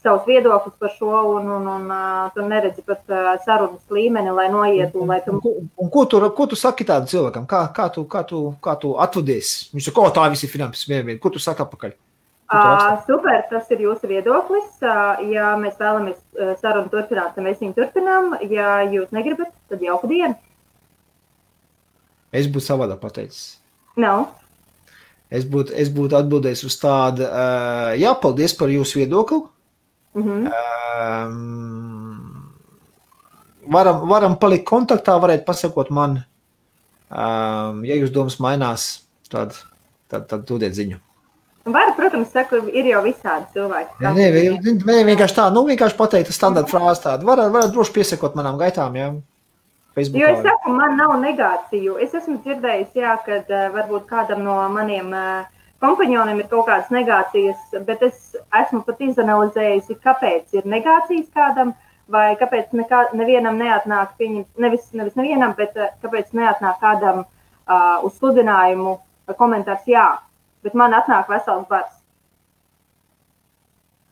savs viedoklis par šo, un tu neredzi pat sarunas līmeni, lai noietu. Un ko tu saki tādu cilvēkam? Kā tu atvadies? Viņš saka, tā visi finanses vienvienu. Ko tu saki apakaļ? Super, tas ir jūsu viedoklis. Ja mēs vēlamies sarunu turpināt, tad mēs viņu turpinām. Ja jūs negribat, tad jauku dienu. Es būtu savādā pateicis. No. Es būtu atbildējis uz tādu, jā, paldies par jūsu viedokli. Varam palikt kontaktā, varētu pasakot man, ja jūs domas mainās, tad dodiet ziņu. Var, protams, saku, ir jau visādi cilvēki. Nē, vienkārši tā, vienkārši pateikt standarta frāzi tādu. Varat droši piesakot manām gaitām, jā. Facebookā. Jo es saku, man nav negāciju. Es esmu dzirdējis, jā, kad varbūt kādam no maniem kompanioniem ir kaut kādas negācijas, bet es esmu pat izanalizējusi, kāpēc ir negācijas kādam, vai kāpēc nevienam neatnāk, nevis nevienam, bet kāpēc neatnāk kādam uz sludinājumu komentārs jā, bet man atnāk vesels bars.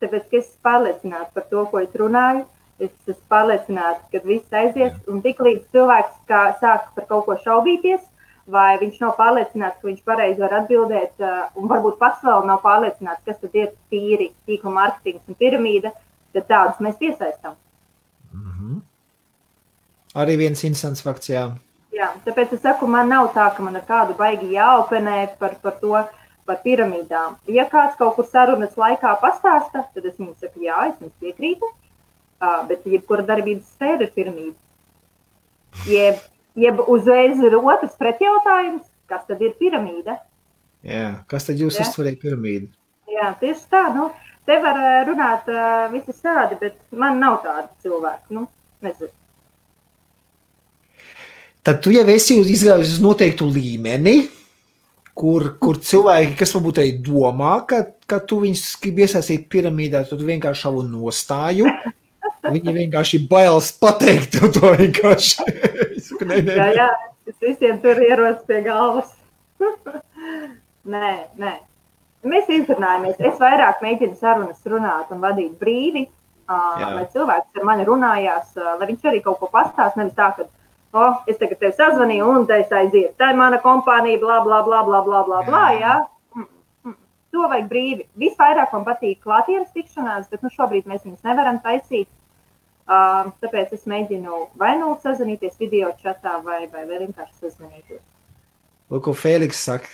Tāpēc, ka es pārliecinātu par to, ko es runāju, es esmu pārliecināta, ka viss aizies, un tik līdz cilvēks sāk par kaut ko šaubīties, vai viņš nav pārliecināts, ka viņš pareizi var atbildēt, un varbūt pats vēl nav pārliecināts, kas tad ir tīri tīkla mārketings un piramīda, tad tādus mēs piesaistām. Arī viens interesants fakts, jā. Jā, tāpēc es saku, man nav tā, ka man ar kādu baigi jāopenē par to, par piramīdām. Ja kāds kaut kur sarunas laikā pastāsta, tad es viņu saku, jā, es jums piekrītu. Bet jebkura darbības sfēra ir piramīda. Jeb uzreiz ir otrs pretjautājums, kas tad ir piramīda? Jā, kas tad jūs uztverēja piramīdu? Jā, tieši tā, te var runāt visi tādi, bet man nav tādi cilvēki, nezinu. Tad tu jau esi izgājis uz noteiktu līmeni, kur cilvēki, kas varbūt arī domā, ka tu viņus grib iesaistīt piramīdā, tad tu vienkārši savu nostāju. Viņi vienkārši bailes pateikt to vienkārši. Jā, es visiem tur ierodas pie galvas. Nē. Mēs izrunājamies. Es vairāk mēģinu sarunas runāt un vadīt brīvi, lai cilvēks ar mani runājās, lai viņš arī kaut ko pastāst, nevis tā, ka es tagad tevi sazvanīju un te es aiziet. Tā ir mana kompānija, blā, blā, blā, blā, blā, blā, blā, jā. To vajag brīvi. Visvairāk man patīk klātienes tikšanās, bet šobrīd mēs viņus nevaram taisīt. Tāpēc es mēģinu vai sazvanīties video čatā vai vienkārši sazvanīties. Lūk, ko Fēliks saka.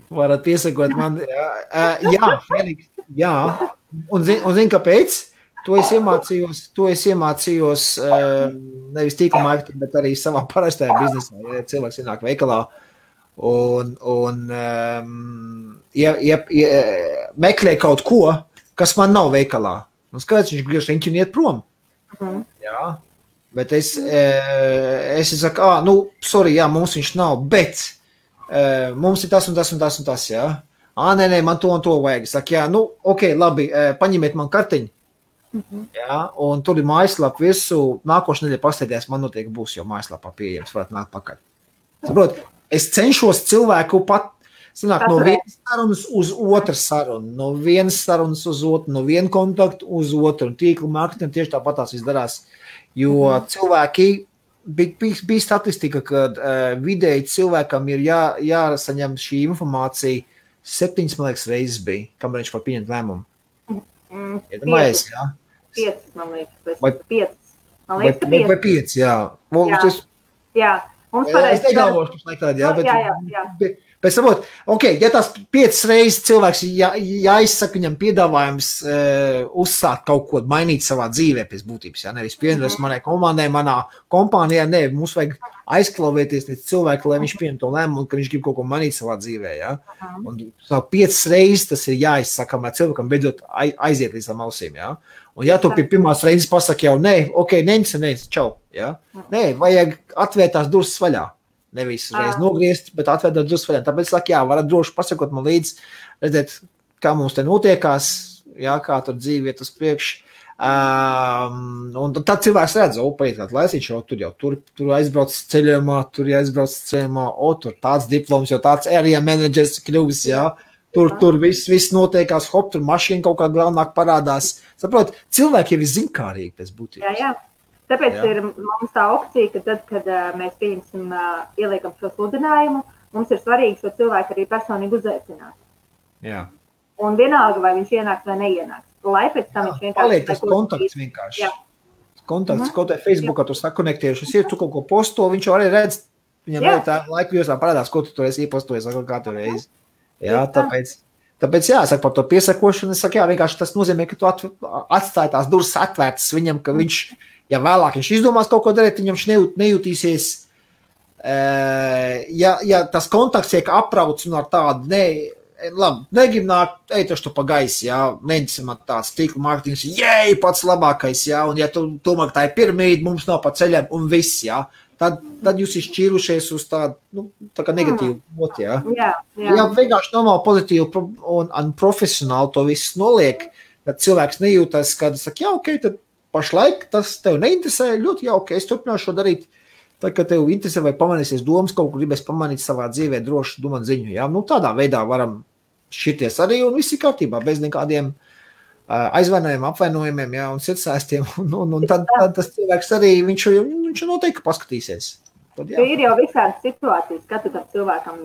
Varat piesakot man. Jā, Fēliks, jā. Un zin kāpēc? To es iemācījos nevis tīkla marketingu, bet arī savā parastajā biznesā. Ja cilvēks ienāk veikalā un meklē kaut ko, kas man nav veikalā. Un skaidrs, viņš griež riņķi un iet prom. Jā, bet es saku, sorry, jā, mums viņš nav, bet mums ir tas un tas un tas un tas, jā. Nē, man to un to vajag. Es saku, jā, ok, labi, paņemiet man kartiņu. Jā, un tur ir mājaslapa visu. Nākošu nedēļu pasteidēs, man noteikti būs jau mājaslapā pieejams, varat nākt pakaļ. Saprot, es cenšos cilvēku pat, sanāk, no vienas sarunas uz otru sarunu, no vienas sarunas uz otru, no viena kontaktu uz otru, un tīkla marketing tieši tāpatās viss darās, jo cilvēki, bija statistika, ka vidēji cilvēkam ir jāsaņem šī informācija 7, man liekas, reizes bija, kamēr viņš var pieņemt lēmumu. 5, man liekas, vai 5. Man liekas, 5. Vai 5, jā. Jā, mums pareizi. Es negalvošu, kas laikādi, jā, bet... Jā. Bet saprot, ja tās 5 reizes cilvēks jāizsaka viņam piedāvājums uzsākt kaut ko, mainīt savā dzīvē pēc būtības, jā, nevis pievienoties manai komandai, manā kompānijā, ne, mums vajag aizklauvēties līdz cilvēku, lai viņš pieņem to lēmumu, ka viņš grib kaut ko mainīt savā dzīvē, jā. Un 5 reizes tas ir jāizsaka, lai cilvēkam beidzot aiziet līdz tam ausīm, jā. Un ja tu pie pirmās reizes pasaki jau, nē, nec, čau, jā. Nē, vajag atvērt tās durvis vaļā. Nevis reiz nogriezt, bet atvērt durvis vaļā. Tāpēc saka, jā, varat droši pasakot man līdz, redzēt, kā mums te notiekās, jā, kā tur dzīve iet uz priekšu. Un tad cilvēks redz, paiet kādu laicīšu, tur aizbrauc ceļojumā, tur tāds diploms, jau tāds area managers kļuvis, jā. Tur viss notiekās, tur mašīna kaut kā galvenāk parādās. Saprot, cilvēki jau ir zinkārīgi pēc būtības. Jā. Tāpēc ir mums tā opcija, ka tad, kad mēs pieņemsim, ieliekam šo sludinājumu, mums ir svarīgi šo cilvēku arī personīgi uzaicināt. Jā. Un vienalga, vai viņš ienāks vai neienāks. Lai pēc tam viņš vienkārši... Paliek tas kontakts vienkārši. Jā. Kontakts, kaut vai Facebookā tu sakonektiešies, ir tu kaut ko posto, viņš jau arī redz, viņam arī tā laika josā parādās, ko tu tur esi iepostojis, vai katru reizi. Jā, tāpēc jā, saka par to piesakošanu, es saku, jā, vienkārši tas nozīmē, ka tu atstāji tās durvis atvērtas viņam, ka viņš... Ja vēlāk viņš izdomās kaut ko darīt, viņam nejūtīsies, ja tas kontakts tiek aprauts un ar tādu, negrib nākt, eitašu tu pa gaisi, jā, neņemsim tāds tīkla mārketings, pats labākais, jā, un ja tu domā, ka tā ir piramīda, mums nav pa ceļiem un viss, jā, tad jūs ir šķīrušies uz tādu, tā kā negatīvu moti, jā. Ja vienkārši normāli pozitīvu un profesionāli to visu noliek, tad cilvēks nejūtas, kad saka, jā, ok, tad pašlaik tas tev neinteresē, ļoti jauki, es turpināšu šo darīt. Tad, kad tev interesē vai pamanīsies domas, kaut ko gribēs pamanīt savā dzīvē, droši domāt ziņu. Jā? Tādā veidā varam šķirties arī un viss ir kārtībā, bez nekādiem aizvainojumiem, apvainojumiem, jā, un sirdsēstiem. Un tad tas cilvēks arī, viņš noteikti paskatīsies. Tad, jā. Ir jau visādas situācijas, kad tu tam cilvēkam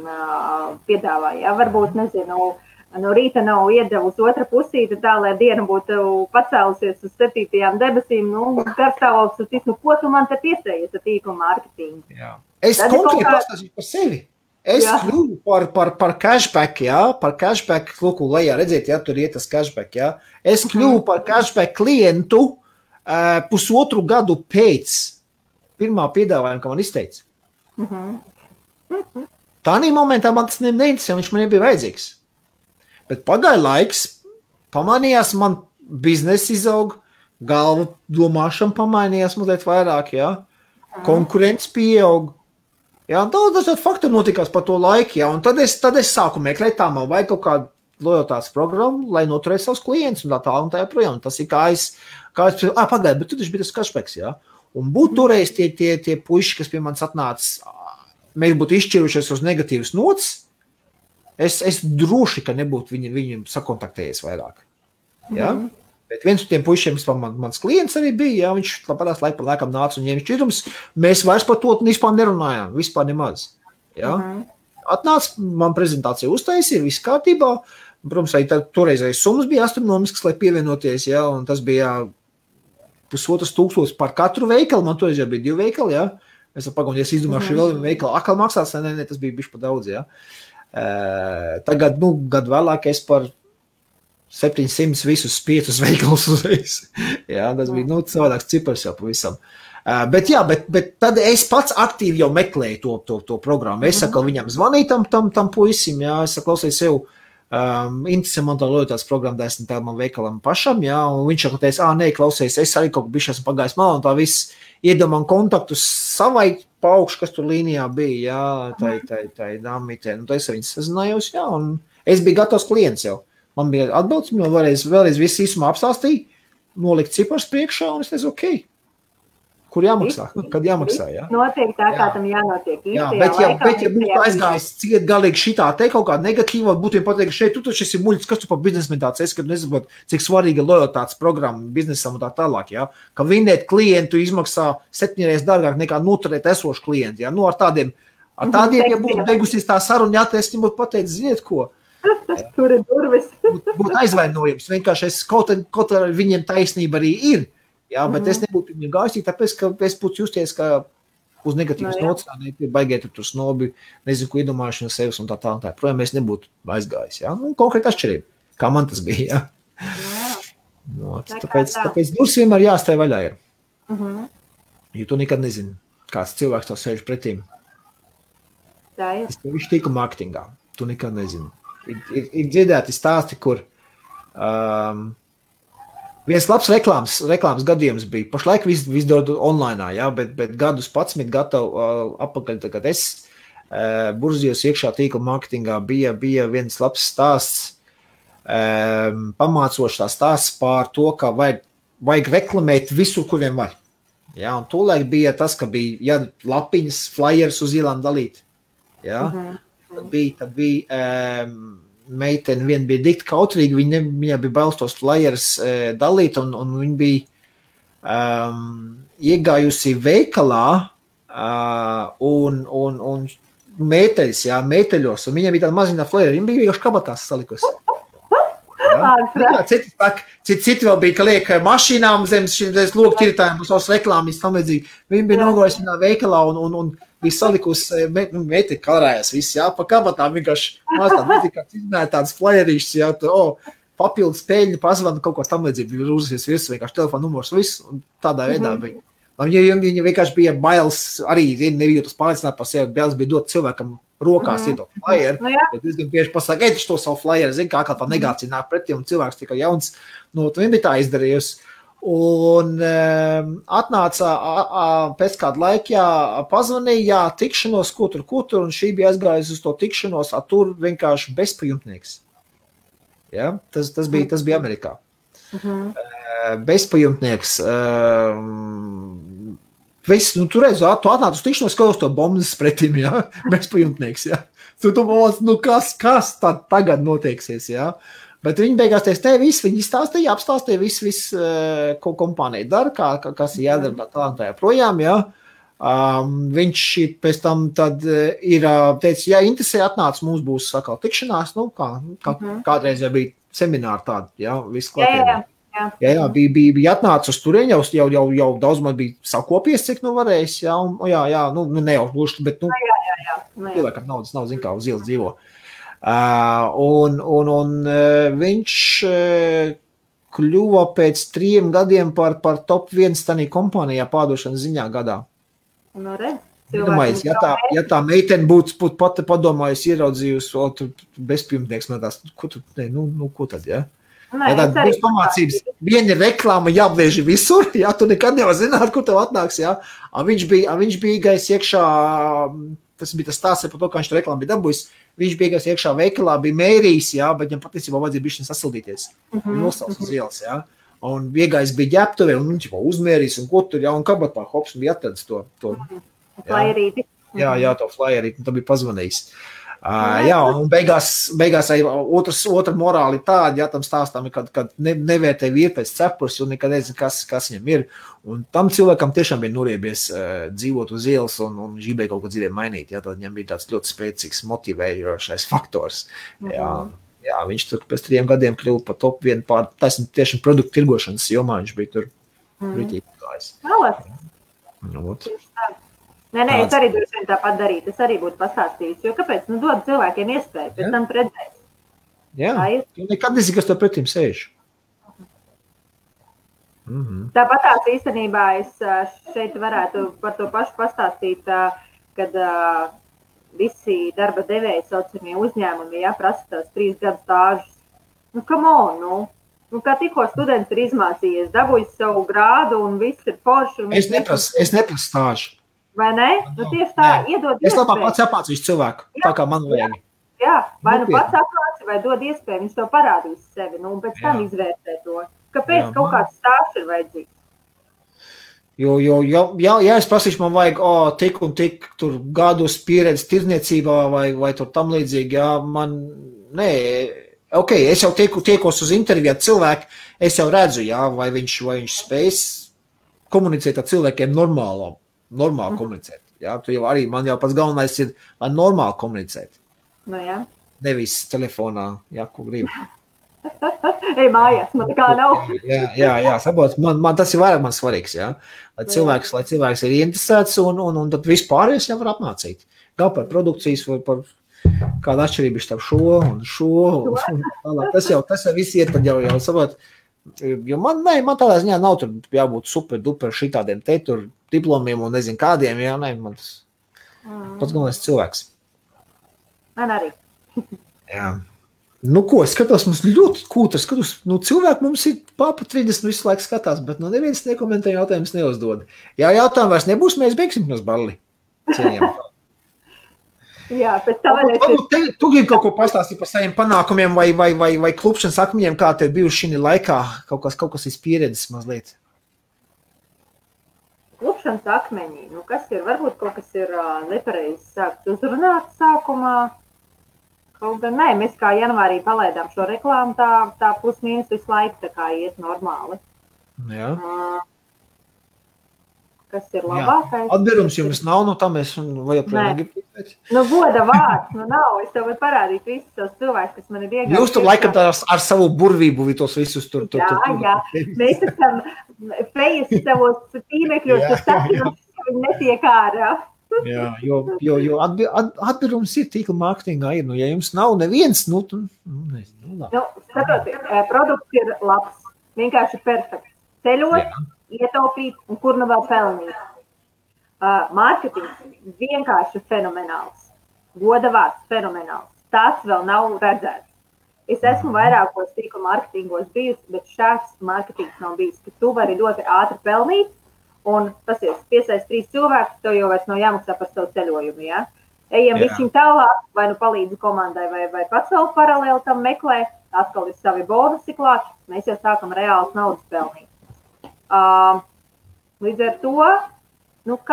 piedāvā. Jā? Varbūt, nezinu, no rīta nav iedevusi otra pusīte tā, lai diena būtu pacēlusies uz 7. debesīm, garstāvoklis, ko tu man te piesējies ar tīklu mārketingu? Jā. Es konkrēti pastāstīju par sevi. Es kļuvu par cashback, jā, par cashback, lūku, lejā, redziet, jā, tur iet tas cashback, jā. Es kļuvu par cashback klientu 1,5 gadu pēc pirmā piedāvājuma, ka man izteica. Tādā momentā man tas neinteresē, viņš man nebija vajadzīgs. Bet pagāja laiks, pamanījās man biznesa izaug, galva domāšana pamainījās mazliet vairāk, jā. Konkurence pieaug. Jā, daudz dažādi faktori notikās par to laiku, jā. Un tad es sāku meklēt, tā man vajag kaut kādu lojotātes programmu, lai noturētu savus klientus un tā un tā joprojām. Tas ir kā es pagāju, bet tu taču bija tas cashbacks, jā. Un būtu toreiz tie puiši, kas pie manis atnāca, mēs būtu izšķirušies uz negatīvas nots, es droši, ka nebūtu viņam sakontaktējies vairāk. Ja? Bet viens no tiem puišiem, mans klients arī bija, ja? Viņš labādās laika pa laikam nāca un ņēma šķirums, mēs vairs par to vispār nerunājām, vispār nemaz. Ja? Atnāca, man prezentācija uztaisīja, viss kārtībā, protams, arī toreizais summas bija astronomisks, lai pievienoties, ja? Un tas bija 1,500 par katru veikalu, man toreiz jau bija 2 veikali, ja? Es pagaunu, ja es izdomāšu vēl vienu veikalu, akal maksās, ne, tas bija bišķi pa daudz, ja? Tagad, gadu vēlāk es par 700 visus 5 veikalus uzreiz. Jā, tas bija, savādāks cipars jau pavisam. Bet tad es pats aktīvi jau meklēju to programmu. Es saku, viņam zvanīju tam puisim, jā, es saku, klausies sev, interesē man tā lojotātes programma, da esmu tā man veikalam pašam, jā, un viņš jau teica, nē, klausies, es arī kaut bišķi esmu pagājis malā, un tā viss iedomā kontaktus savai paukšu, kas tur līnijā bija, jā, tai dāmītē, un es ar viņu sazinājos, jā, un es biju gatavs klients jau. Man bija atbildes, man vēlreiz visu īsumā apstāstīja, nolikt cipars priekšā, un es teicu, ok, Kur jāmaksā? Kad jāmaksā, jā? Notiek tā, kā tam jānotiek. Jā, bet ja būtu aizgājis ciet galīgi šitā te kaut kā negatīva, būtu pateikt, šeit tu taču esi muļķis, kas tu par biznesmeni tāds esi, kad nesaprot, cik svarīga lojalitātes programma biznesam un tā tālāk, jā? Ka vinēt klientu izmaksā 7 reizes dārgāk nekā noturēt esošu klientu, jā? Nu, ar tādiem, ja būtu beigusies tā saruna, jā, es viņam būtu pateikt, ziniet ko? Tur ir durvis. Būtu aizvainojums, vienkārši kaut ar viņiem taisnība arī ir, jā, bet es nebūtu viņam gājis, tāpēc, ka es būtu justies, ka uz negatīvas notsānīt, baigiet tur snobi, nezinu, ko iedomājuši no sevis un tā. Projām es nebūtu aizgājis, jā? Nu, konkrēti atšķirība, kā man tas bija, jā. No, tāpēc durs vienmēr jāstāj vaļā ir. Jo tu nekad nezini, kāds cilvēks tev sēž pretīm. Tā ir. Tas viņš tīku marketingā, tu nekad nezini. Ir dzirdēti stāsti, kur viens labs reklāmas gadījums bija. Pašlaik viss dod online, jā, bet gadus 11 gatavu apakaļ, kad es burzījos iekšā tīkla marketingā, bija viens labs stāsts, pamācošs tā stāsts pār to, ka vajag reklamēt visur, kur vien var. Jā, un tolaik bija tas, ka bija lapiņas, flyers uz ielām dalīt. Jā, tad bija meitene viena bija dikti kautrīga, viņa bija bailes tos flyers dalīt, un viņa bija iegājusi veikalā un meiteļos, un viņa bija tāda maziņā flyeri, viņa bija vienkārši kabatās salikusi. Citi vēl bija, ka liek mašīnām zem loku tirtājiem uz savas reklāmas tam līdzīgi. Viņa bija nogājusi vienā veikalā un bija salikusi, meiteni karājās visi, jā, pa kabatām vienkārši tādas flyerīšas, jā, papildus peļņu, pazvanu, kaut ko tam līdzīgi, bija rūzies visu, vienkārši telefonu numurs, visu, un tādā veidā bija. Viņa vienkārši bija bailes, arī nebija tas pārliecināt par sevi, bailes bija dot cilvēkam rokās iedot flyer, bet es gan bieži pasaka, ej, to savu flyer, zin, kā tā negācija nāk pretī, un cilvēks tikai jauns, nu, viņa bija tā izdarījusi. Un atnāca pēc kāda laika, pazvanīja, tikšanos, ko tur, un šī bija aizgājusi uz to tikšanos, tur vienkārši bezpajumtnieks. Ja? Tas bija Amerikā. Bezpajumtnieks. Tu reiz, tu atnāc uz tikšanos, kā uz to bombas pretim, ja? Bezpajumtnieks, ja? Tu domāc, nu kas tagad noteiksies, ja? Bet viņi beigās teica, viņi stāstīja, apstāstīja visu, ko kompānija dara, kas ir jādara tā projām, ja? Viņš pēc tam tad ir teica, ja interesē atnāc, mums būs sakal tikšanās, nu, kādreiz jau bija semināri tādi, ja? Viss klātienē. Jā, bija atnācis uz turien, jau daudz man bija sakopies, cik nu varējis, jā, ne jau gluži, bet, cilvēkam naudas nav, zin kā, uz ielas dzīvo. Un viņš kļuva pēc 3 gadiem par top 1 tanī kompānijā pārdošanas ziņā gadā. Nu, redz. Ja tā meitene būtu pati padomājusi, ieraudzījusi, bezpajumtnieks, man tās, ko tad, ja? Ja tāda būs pamācības, viena ir reklāma jāapvieži visur, jā, tu nekad nevar zināt, kur tev atnāks, jā. Viņš bija gājis iekšā, tas bija tas stāsts par to, kā viņš to reklāmu bija dabūjis, viņš bija gājis iekšā veikalā, bija mērījis, jā, bet viņam patiesībā vajadzēja bišķiņ sasildīties, nosauc uz ielas, jā. Un iegājis bija ģēptuvē, un viņš uzmērījis, un ko tur, jā, un kabatā hops, un bija atradis to flyerīti. Jā, to flyerīti, un tā bija pazvanījis. Jā, un beigās arī otra morāli tāda, jā, tam stāstām, kad nevērtē vīri pēc cepures, un nekad nezinu, kas viņam ir. Un tam cilvēkam tiešām bija noriebies dzīvot uz ielas un gribēja kaut ko dzīvē mainīt. Jā, tad viņam bija tāds ļoti spēcīgs motivējošais faktors. Jā, viņš tur pēc 3 gadiem kļuva par top 1 tiešām produktu tirgošanas jomā, viņš bija tur rītīgi gājis. Nē, es arī droši vien tāpat darītu, es arī būtu pastāstījis, jo kāpēc, dod cilvēkiem iespēju, pēc tam redzēt. Jā, tu nekad nezini, kas tev pretim sēž. Tāpat tās īstenībā es šeit varētu par to pašu pastāstīt, kad visi darba devēji saucamie uzņēmumi, prasa tās 3 gadu stāžus. Come on, kā tikko students ir izmācījies, dabūjis savu grādu un viss ir forši. Es neprasu stāžu. Vai ne? Tieši tā, iedod iespēju. Es labāk pats apmācīšu cilvēku, tā kā man vajag. Jā, vai pats apmāci, vai dod iespēju, viņš to parādīs sevi, un pēc tam izvērtē to. Kāpēc kaut kāds stāsts ir vajadzīgs? Ja es prasīšu, man vajag tik un tik tur gadus pieredzi tirdzniecībā vai tur tam līdzīgi, jā, man, nē, ok, es jau tiekos uz interviju ar cilvēku, es jau redzu, jā, vai viņš spējas komunicēt ar cilvēkiem normāli komunicēt, jā, tu jau arī, man jau pats galvenais ir, lai normāli komunicēt. Nu, jā. Nevis telefonā, jā, ko gribu. Ej mājās, man kā nav. Jā, saprot, man tas ir vairāk man svarīgs, jā. Lai cilvēks ir interesēts un tad vispārējais jau var apmācīt. Gan par produkcijas, vai par kādu atšķirību starp šo un tālāk. Tas jau viss iet tad jau saprot. Jo man tādā ziņā nav tur jābūt super duper šitādiem te tur diplomiem un nezinu kādiem, jā, man tas pats galvenais cilvēks. Man arī. Jā. Nu, ko, es skatos, mums ļoti kūta, cilvēki mums ir papa 30 visu laiku skatās, bet neviens nekomentē jautājumus neuzdod. Ja jautājumu vairs nebūs, mēs beigsim nos balli. Jā, pēc tā Tu gribi kaut ko pastāstīt par saviem panākumiem vai klupšanas akmeņiem, kā tev bijuši šī laikā, kaut kas ir pieredzes mazliet? Klupšanas akmeņi, kas ir, varbūt kaut kas ir nepareizi sākts uzrunāt sākumā. Kaut gan nē, mēs kā janvārī palaidām šo reklāmu, tā plus mīnus visu laiku tā kā iet normāli. Jā. Kas ir labākais? Atbērums jums nav, tā mēs vajag pēc. Goda vārds, nav. Es tev varu parādīt visus tos cilvēkus, kas man ir iegājuši. Jūs tur laikam ar savu burvību tos visus tur. Jā. Mēs esam fejas savos tīmekļos, kas sakinās, ka viņi netiek ārā. Jā, jo atbērums ir tīkla mārketingā ir, ja jums nav neviens, nezinu. Skatoties, produkts ir labs, vienkārši perfekts. Ceļot, ietaupīt un kur vēl pelnīt. Mārketings vienkārši fenomenāls. Goda vārds fenomenāls. Tas vēl nav redzēts. Es esmu vairākos tīkla mārketingos bijusi, bet šāds mārketings nav bijis, ka tu vari ļoti ātri pelnīt. Un tas ir piesaist 3 cilvēkus, tev jau vairs nav jāmaksā par savu ceļojumu, jā? Ejam višķiņ tālāk, vai palīdzi komandai, vai pats vēl paralēli tam meklē, atkal ir savi bonusi klāt, mēs jau sākam reāls naudas pelnīt. Līdz ar to,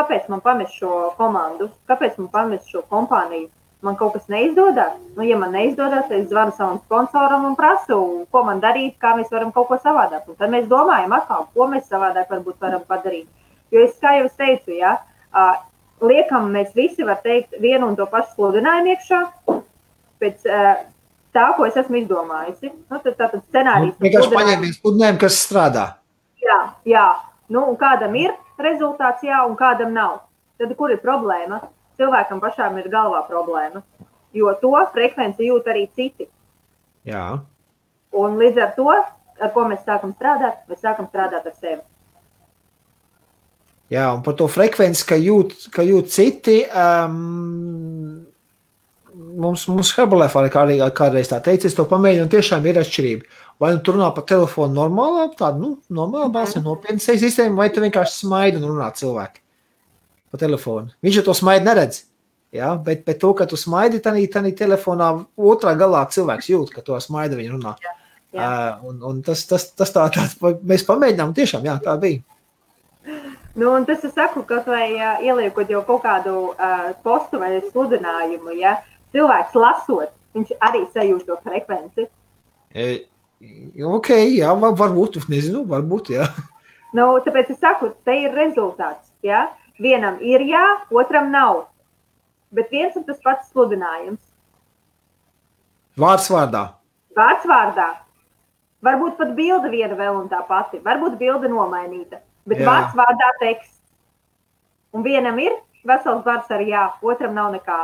kāpēc man pamest šo komandu, kāpēc man pamest šo kompāniju? Man kaut kas neizdodas? Ja man neizdodas, es zvanu savam sponsoram un prasu, ko man darīt, kā mēs varam kaut ko savādāk. Un tad mēs domājam atkal, ko mēs savādāk varbūt varam padarīt. Jo kā jau es teicu, liekam, mēs visi var teikt vienu un to pašu sludinājumu iekšā, pēc tā, ko es esmu izdomājusi. Tātad scenārijas. Vienkārši paņēmies sludinājumu, kas strādā. Jā. Un kādam ir rezultāts, un kādam nav. Tad kur ir problēma? Cilvēkam pašām ir galvā problēma, jo to frekvenci jūt arī citi. Jā. Un līdz ar to, ar ko mēs sākam strādāt ar sevi. Jā, un par to frekvenci, ka jūt citi, mums Herbalife arī kādreiz tā teica, es to pamēģinu, un tiešām ir atšķirība. Vai tu runā pa telefonu normālā balsī, nopietnas sistēma, vai tu vienkārši smaidi un runā cilvēki pa telefonu. Viņš jau to smaidi neredz, jā, bet to, ka tu smaidi, tanī telefonā otrā galā cilvēks jūt, ka to smaidi viņa runā. Jā. Un tas tā, mēs pamēģinām, tiešām, jā, tā bija. Un tas es saku, kaut vai ieliekot jau kaut kādu postu vai sludinājumu, ja cilvēks lasot, viņš arī sajūst to frekvenci. Ok, jā, varbūt, nezinu, varbūt, jā. Tāpēc es saku, te ir rezultāts, jā. Vienam ir jā, otram nav. Bet viens un tas pats sludinājums. Vārds vārdā. Vārds vārdā. Varbūt pat bilde viena vēl un tā pati. Varbūt bilde nomainīta. Bet vārds vārdā teksts. Un vienam ir vesels vārds ar jā, otram nav nekā.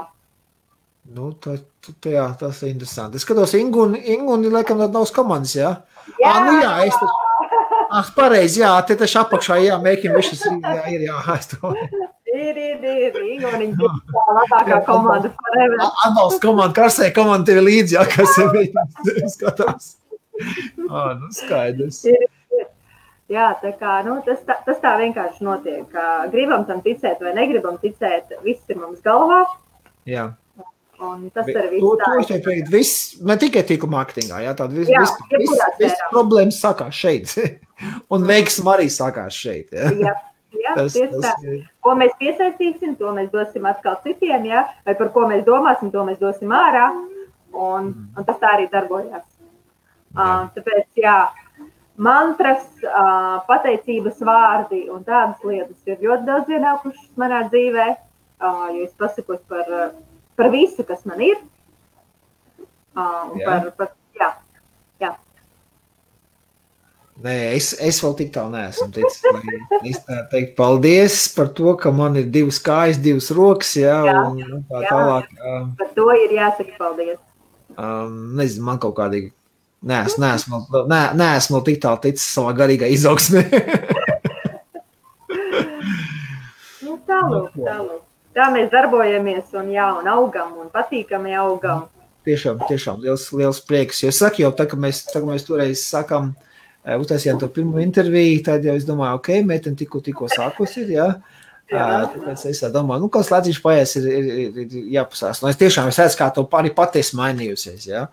Tas ir interesanti. Es skatos, Inguni, laikam, nav komandas, jā? Jā, pareizi, jā, te taču apakšā, jā, mēķim višas, ir, jā, es to. Ir, Inguniņ, tā labākā komanda forever. Atbalsts komanda, karsē komanda tevi līdzi, jā, kas ir skatās. Skaidrs. Jā, tā kā, tas tā vienkārši notiek. Gribam tam ticēt vai negribam ticēt, viss ir mums galvā. Jā. Un tas ir viss tā. Ne tikai tīkla mārketingā, jā, tāda viss problēmas sākās šeit. Un veiksma arī sākās šeit. Jā, Jā, tieši tā. Ko mēs piesaistīsim, to mēs dosim atkal citiem, jā, vai par ko mēs domāsim, to mēs dosim ārā, un tas tā arī darbojās. Tāpēc, jā, mantras, pateicības vārdi un tādas lietas ir ļoti daudz ienākušas manā dzīvē, jo es pasakos par visu, kas man ir, jā. Nē, es vēl tik tālu neesmu ticis. Es tā teikt, paldies par to, ka man ir 2 kājas, 2 rokas, jā, un tā tālāk. Par to ir jāsaka paldies. Nezinu, man kaut kādīgi neesmu vēl tik tālu ticis savā garīgā izaugsmē. Tālūk. Tā mēs darbojamies un augam un patīkami augam. Tiešām, liels prieks. Jo saku jau, tā, ka mēs toreiz sakām, uztaisījām to pirmo interviju, tad jau es domāju, ok, meitene tikko sākos ir, jā. Tāpēc es domāju, kāds lēcīši paies ir jāpasās. Es tiešām redzu, kā to arī patiesi mainījusies, jā.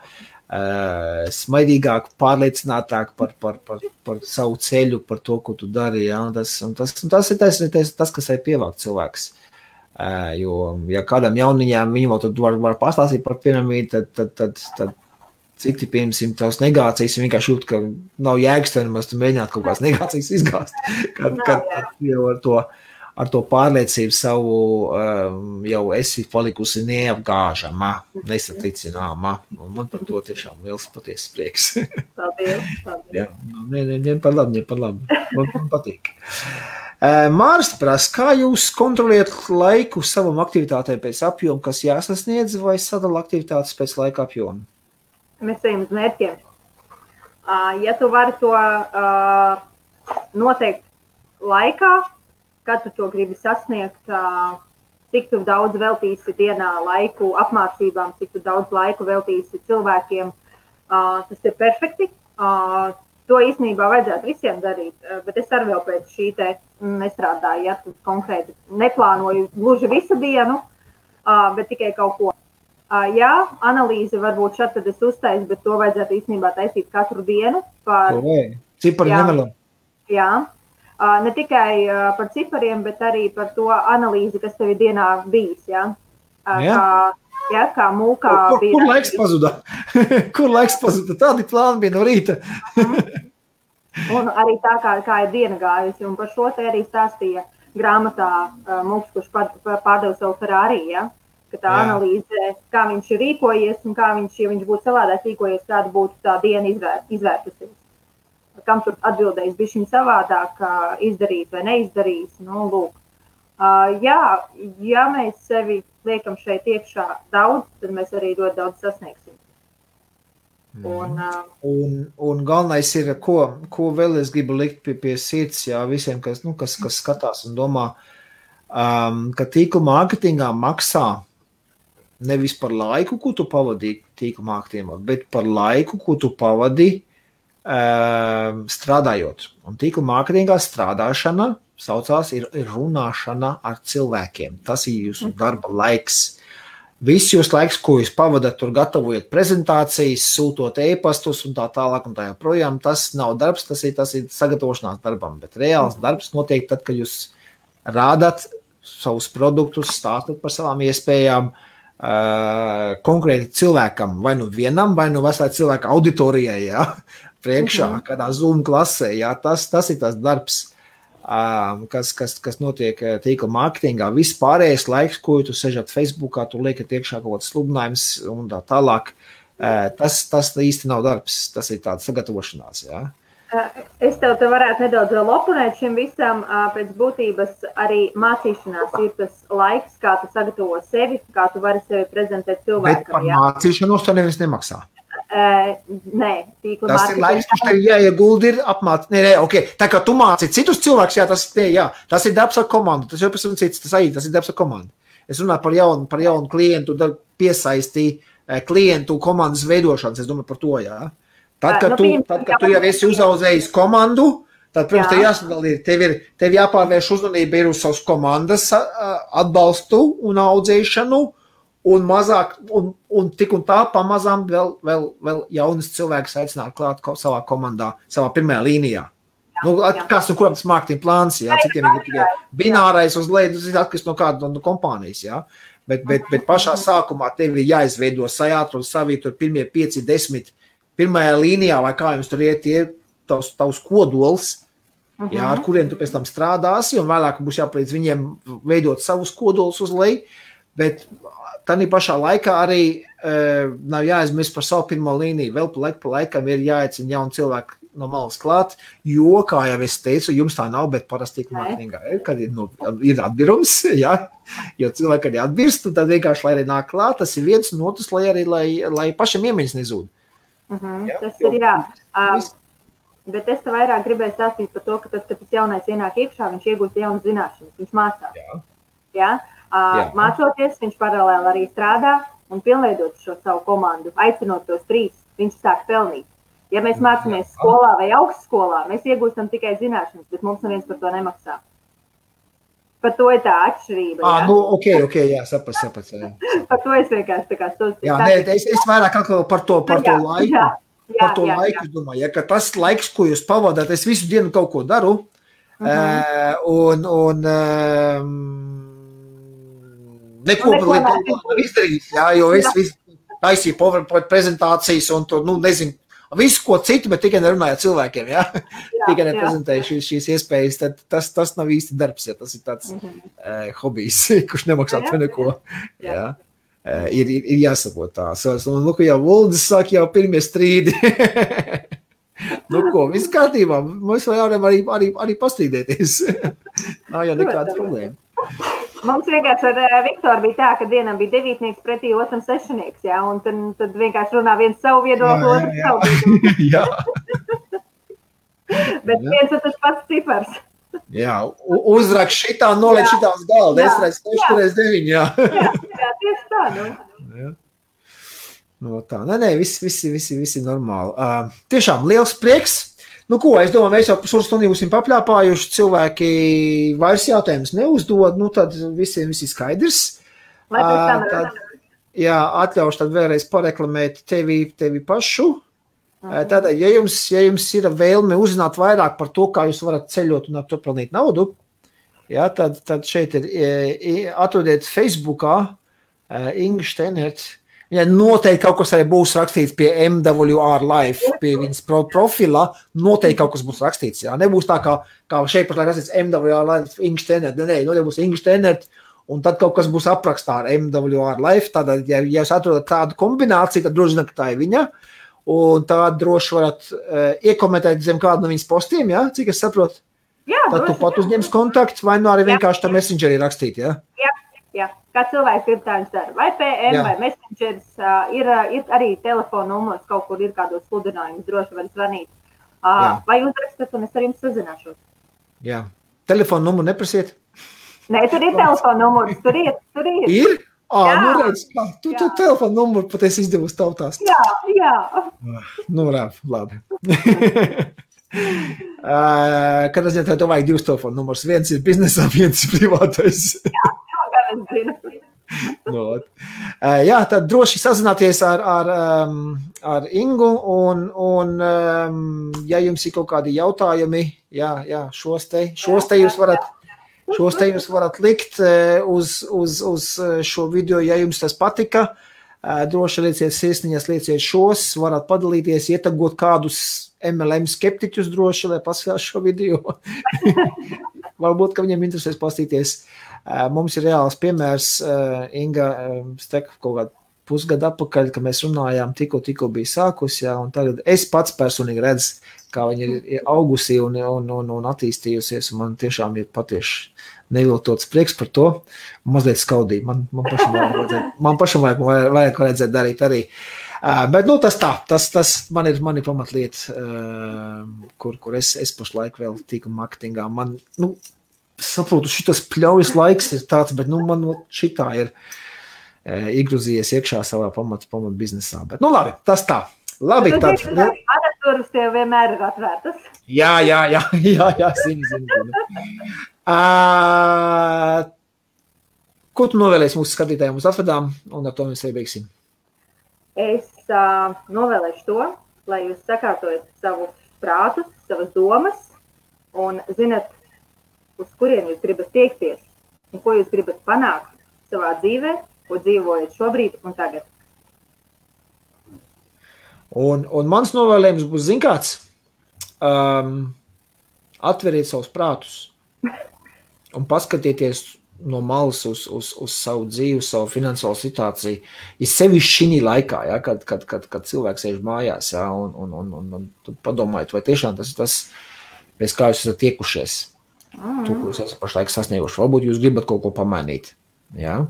Smaidīgāk, pārliecinātāk par savu ceļu, par to, ko tu dari, jā. Un tas ir tas, kas arī pievāk cilvēks. Jo, ja kādam jauniņām viņi vēl tad var pastāstīt par piramīdu, tad cik ti piemēram tavs negācijas, vienkārši jūt, ka nav jēgas tev nemaz tu mēģināt kaut kādas negācijas izgāzt, kad jau ar to pārliecību savu jau esi palikusi neapgāžama, nesatricināma, un man par to tiešām liels patiesas prieks. Paldies. Jā, ne par labi, man patīk. Māris prasa, kā jūs kontroliet laiku savam aktivitātei pēc apjoma, kas jāsasniedz, vai sadala aktivitātes pēc laika apjoma? Mēs ejam uz mērķiem. Ja tu vari to noteikt laikā, kad tu to gribi sasniegt, cik tu daudz veltīsi dienā laiku apmācībām, cik tu daudz laiku veltīsi cilvēkiem, tas ir perfekti. To īstenībā vajadzētu visiem darīt, bet es arī vēl pēc šī te nestrādāju, ja tu konkrēti neplānoju gluži visu dienu, bet tikai kaut ko. Jā, analīze varbūt šad tad es uztaisu, bet to vajadzētu īstenībā taisīt katru dienu. Cipari nemelo. Jā, ne tikai par cipariem, bet arī par to analīzi, kas tev ir dienā bijis. Kā mūkā bija. Kur laiks pazuda? Kur laiks pazuda? Tādi plāni bija no rīta. Un arī tā, kā ir diena gājusi. Un par šo te arī stāstīja grāmatā Mūks, kurš pārdeva savu Ferrari, ja? Ka tā analīze, kā viņš ir rīkojies un kā viņš, ja viņš būtu savādāk rīkojies, kāda būtu tā diena izvērtusies. Kam tur atbildējis bišķiņ savādāk, izdarīt vai neizdarīt. Nu, lūk. Ja mēs sevi liekam šeit iekšā daudz, tad mēs arī ļoti daudz sasniegsim. Un galvenais ir, ko vēl es gribu likt pie sirds, jā, visiem, kas skatās un domā, ka tīkla mārketingā maksā nevis par laiku, ko tu pavadīji tīkla mārketingā, bet par laiku, ko tu pavadīji strādājot. Un tīkla mārketingā strādāšana saucās ir runāšana ar cilvēkiem. Tas ir jūsu darba laiks. Viss jūs laiks, ko jūs pavadat, tur gatavojat prezentācijas, sūtot e-pastus un tā tālāk un tā joprojām, tas nav darbs, tas ir sagatavošanās darbam, bet reāls darbs notiek tad, kad jūs rādat savus produktus, stāstat par savām iespējām, konkrēti cilvēkam, vai nu vienam, vai nu veselai cilvēka auditorijai, jā, priekšā, kādā Zoom klasē, jā, tas ir tas darbs, kas notiek tīkla mārketingā. Viss pārējais laiks, ko tu sežat Facebookā, tu liekat iekšā kaut kāds sludinājums un tā tālāk, tas īsti nav darbs, tas ir tāds sagatavošanās, jā. Es tev varētu nedaudz vēl oponēt šim visam, pēc būtības arī mācīšanās ir tas laiks, kā tu sagatavo sevi, kā tu vari sevi prezentēt cilvēkam. Bet par mācīšanos to nevis nemaksā. Nē, tīkla tas ir laiks, kurš tev jāiegulda ir apmācīt. Okay. Tā kā tu māci citus cilvēkus, tas ir darbs ar komandu, tas jau pēc cits, tas ir darbs ar komandu. Es runāju par jaunu klientu, piesaistīju klientu komandas veidošanas, es domāju par to, jā. Tad, kad tu jau esi uzaudzējis komandu, tad, protams, tev jāsadalīja, tev jāpārvērš uzmanība ir uz savas komandas atbalstu un audzēšanu, un mazāk, un tik un tā pamazām vēl jaunas cilvēkus aicināt klāt savā komandā, savā pirmajā līnijā. Kāds kuram tas marketing plāns, jā, citiem ir tikai binārais uz leju, tas ir atkarīgs no kāda no kompānijas, jā. Bet pašā sākumā tev ir jāizveido sajātru un savī tur pirmie 5, 10, pirmajā līnijā, vai kā jums tur iet, tavs kodols, jā, ar kuriem tu pēc tam strādāsi, un vēlāk būs jāpalīdz viņiem veidot savus kodolus uz leju, bet tādā pašā laikā arī nav jāaizmirst par savu pirmo līniju. Vēl pa laikam ir jāaicina jauni cilvēki no malas klāt, jo, kā jau es teicu, jums tā nav, bet parasti marketingā ir, kad ir atbirums, jā, jo cilvēki arī atbirst, un tad vienkārši, lai arī nāk klāt, tas ir viens un otrs, lai pašam iemiņas nezūd. Tas ir, jā. Bet es te vairāk gribēju stāstīt par to, ka tad, kad tas jaunais ienāk iekšā, viņš iegūst jaunas zināšanas, viņš mācās. Jā. Mācoties, viņš paralēli arī strādā un pilnveidot šo savu komandu, aicinot tos 3, viņš sāk pelnīt. Ja mēs mācāmies skolā vai augstskolā, mēs iegūstam tikai zināšanas, bet mums neviens par to nemaksā. Par to ir tā atšķirība. Ok, jā, saprast. Par to es vienkārši tā kā stāstu. Jā, es vairāk par to laiku. Par to laiku, es domāju, ja, ka tas laiks, ko jūs pavadāt, es visu dienu kaut ko daru, neko var izdarīt, jā, jo es taisīju PowerPoint prezentācijas un tur, nezinu, visu ko citu, bet tikai nerunāju cilvēkiem, jā, tikai neprezentēju šīs iespējas, tad tas nav īsti darbs, ja tas ir tāds hobijs, kurš nemaksā to neko, jā. Ir jāsaprot tā. Jau Vuldis saka, jau pirmie strīdi. Viss kārtībā. Mēs varam arī pastrīdēties. Nav jau nekāda problēma. Mums vienkārši ar Viktoru bija tā, ka vienam bija 9 pretī, otram 6, jā, un tad vienkārši runā viens savu viedokli, otrs savu viedokli. Jā. Bet viens ir tas pats cipars. Jā, uzrak šitā, noliek šitā uz galda, es redzu 6x9, jā. Jā, tieši tā, Jā. Tā, visi normāli. Tiešām liels prieks. Es domāju, mēs jau pusotru stundu būsim papļāpājuši, cilvēki vairs jautājumus neuzdod, tad visiem viss ir skaidrs. Jā, atļaušu tad vēlreiz pareklamēt tevi pašu. Tātad, ja jums ir vēlme uzzināt vairāk par to, kā jūs varat ceļot un ar to pelnīt naudu, jā, tad šeit atrodiet Facebookā Inga Steinert. Ja noteikti kaut kas arī būs rakstīts pie MWR Life, pie viņas profila, noteikti kaut kas būs rakstīts. Jā. Nebūs tā, kā šeit pat rakstīts MWR Life, Inga Steinert. Noteikti būs Inga Steinert, un tad kaut kas būs aprakstā ar MWR Life. Tātad, ja jūs atrodat tādu kombināciju, tad droši zināt, ka tā ir viņa. Un tā droši varat iekomentēt zem kādu no viņas postiem, jā, cik es saprotu. Jā, tad tu pat uzņems kontaktu, vai arī vienkārši tā messengerī rakstīt, jā? Jā. Kā cilvēks grib tā viņš dara. Vai PM, vai messengers, ir arī telefona numurs, kaut kur ir kādos sludinājumus, droši var zvanīt. Vai uzrakstat, un es ar jums sazināšos. Jā. Telefona numuru neprasiet? Nē, tur ir telefona numurs, tur ir. Ir? Redz, tu telefonu numuru pat esi izdevusi tautās. Jā. Labi. Kad es tev vajag 2 telefonu numurs, viens ir biznesā, viens ir privātais. Jā, gan es zinu. Jā, tad droši sazināties ar Ingu, un ja jums ir kaut kādi jautājumi, jā, šos te jūs varat likt uz šo video, ja jums tas patika. Droši lieciet sirsniņas, lieciet šos, varat padalīties, ietagot kādus MLM skeptiķus droši, lai paskatās šo video. Varbūt, ka viņiem interesēs pastīties. Mums ir reāls piemērs, Inga Steka kaut kādu pusgadu atpakaļ, kad mēs runājām, tikko bija sākus, jā, un tagad es pats personīgi redzu, kā viņa ir augusi un attīstījusies, un man tiešām ir patieši neviltots prieks par to, mazliet skaudīgi. Man pašam vajag redzēt darīt arī. Bet, tas man ir pamatlieta, kur es pašlaik vēl tiku marketingā. Man, saprotu, šitas pļaujas laiks ir tāds, bet, man šitā ir iegrūzījies iekšā savā pamat biznesā. Bet, labi, tas tā. Labi, tad. Adatūras tev vienmēr ir atvērtas. Jā, zinu. Ko tu novēlēsi mūsu skatītājiem uz atvedām, un ar to mēs arī beigsim? Es novēlēšu to, lai jūs sakārtojat savus prātus, savas domas, un zinat, uz kurien jūs gribat tiekties un ko jūs gribat panākt savā dzīvē, ko dzīvojat šobrīd un tagad. Un mans novēlējums būs, zin kāds, atveriet savus prātus un paskatieties no malas uz savu dzīvi, savu finansiālo situāciju. Ir sevišķi šī laikā, ja, kad cilvēks sēž mājās, ja, un padomājiet, vai tiešām tas ir tas, pēc kā jūs esat tiekušies. To, ko jūs esat pašlaik sasnieguši. Varbūt jūs gribat kaut ko pamainīt. Ja?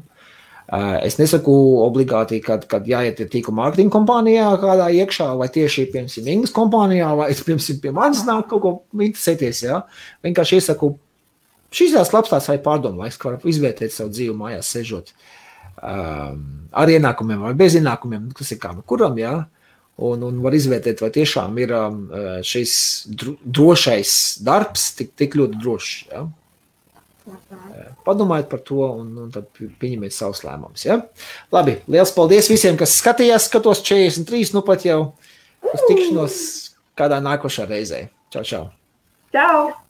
Es nesaku obligāti, kad jāiet tīkla mārketinga kompānijā kādā iekšā, vai tieši, piemēram, Ingas kompānijā, vai, piemēram, pie manis nāk kaut ko interesēties. Ja? Vienkārši iesaku, šis tās labstāsts vai pārdomlaiks, ka var izvērtēt savu dzīvi mājās sežot ar ienākumiem vai bez ienākumiem, kas ir kā kuram, ja? Un var izvērtēt, vai tiešām ir šis drošais darbs tik ļoti drošs. Ja? Padomājiet par to un tad pieņemiet savus lēmumus. Ja? Labi, liels paldies visiem, kas skatījās, skatos 43, nu pat jau uz tikšanos kādā nākošā reizē. Čau, čau. Čau!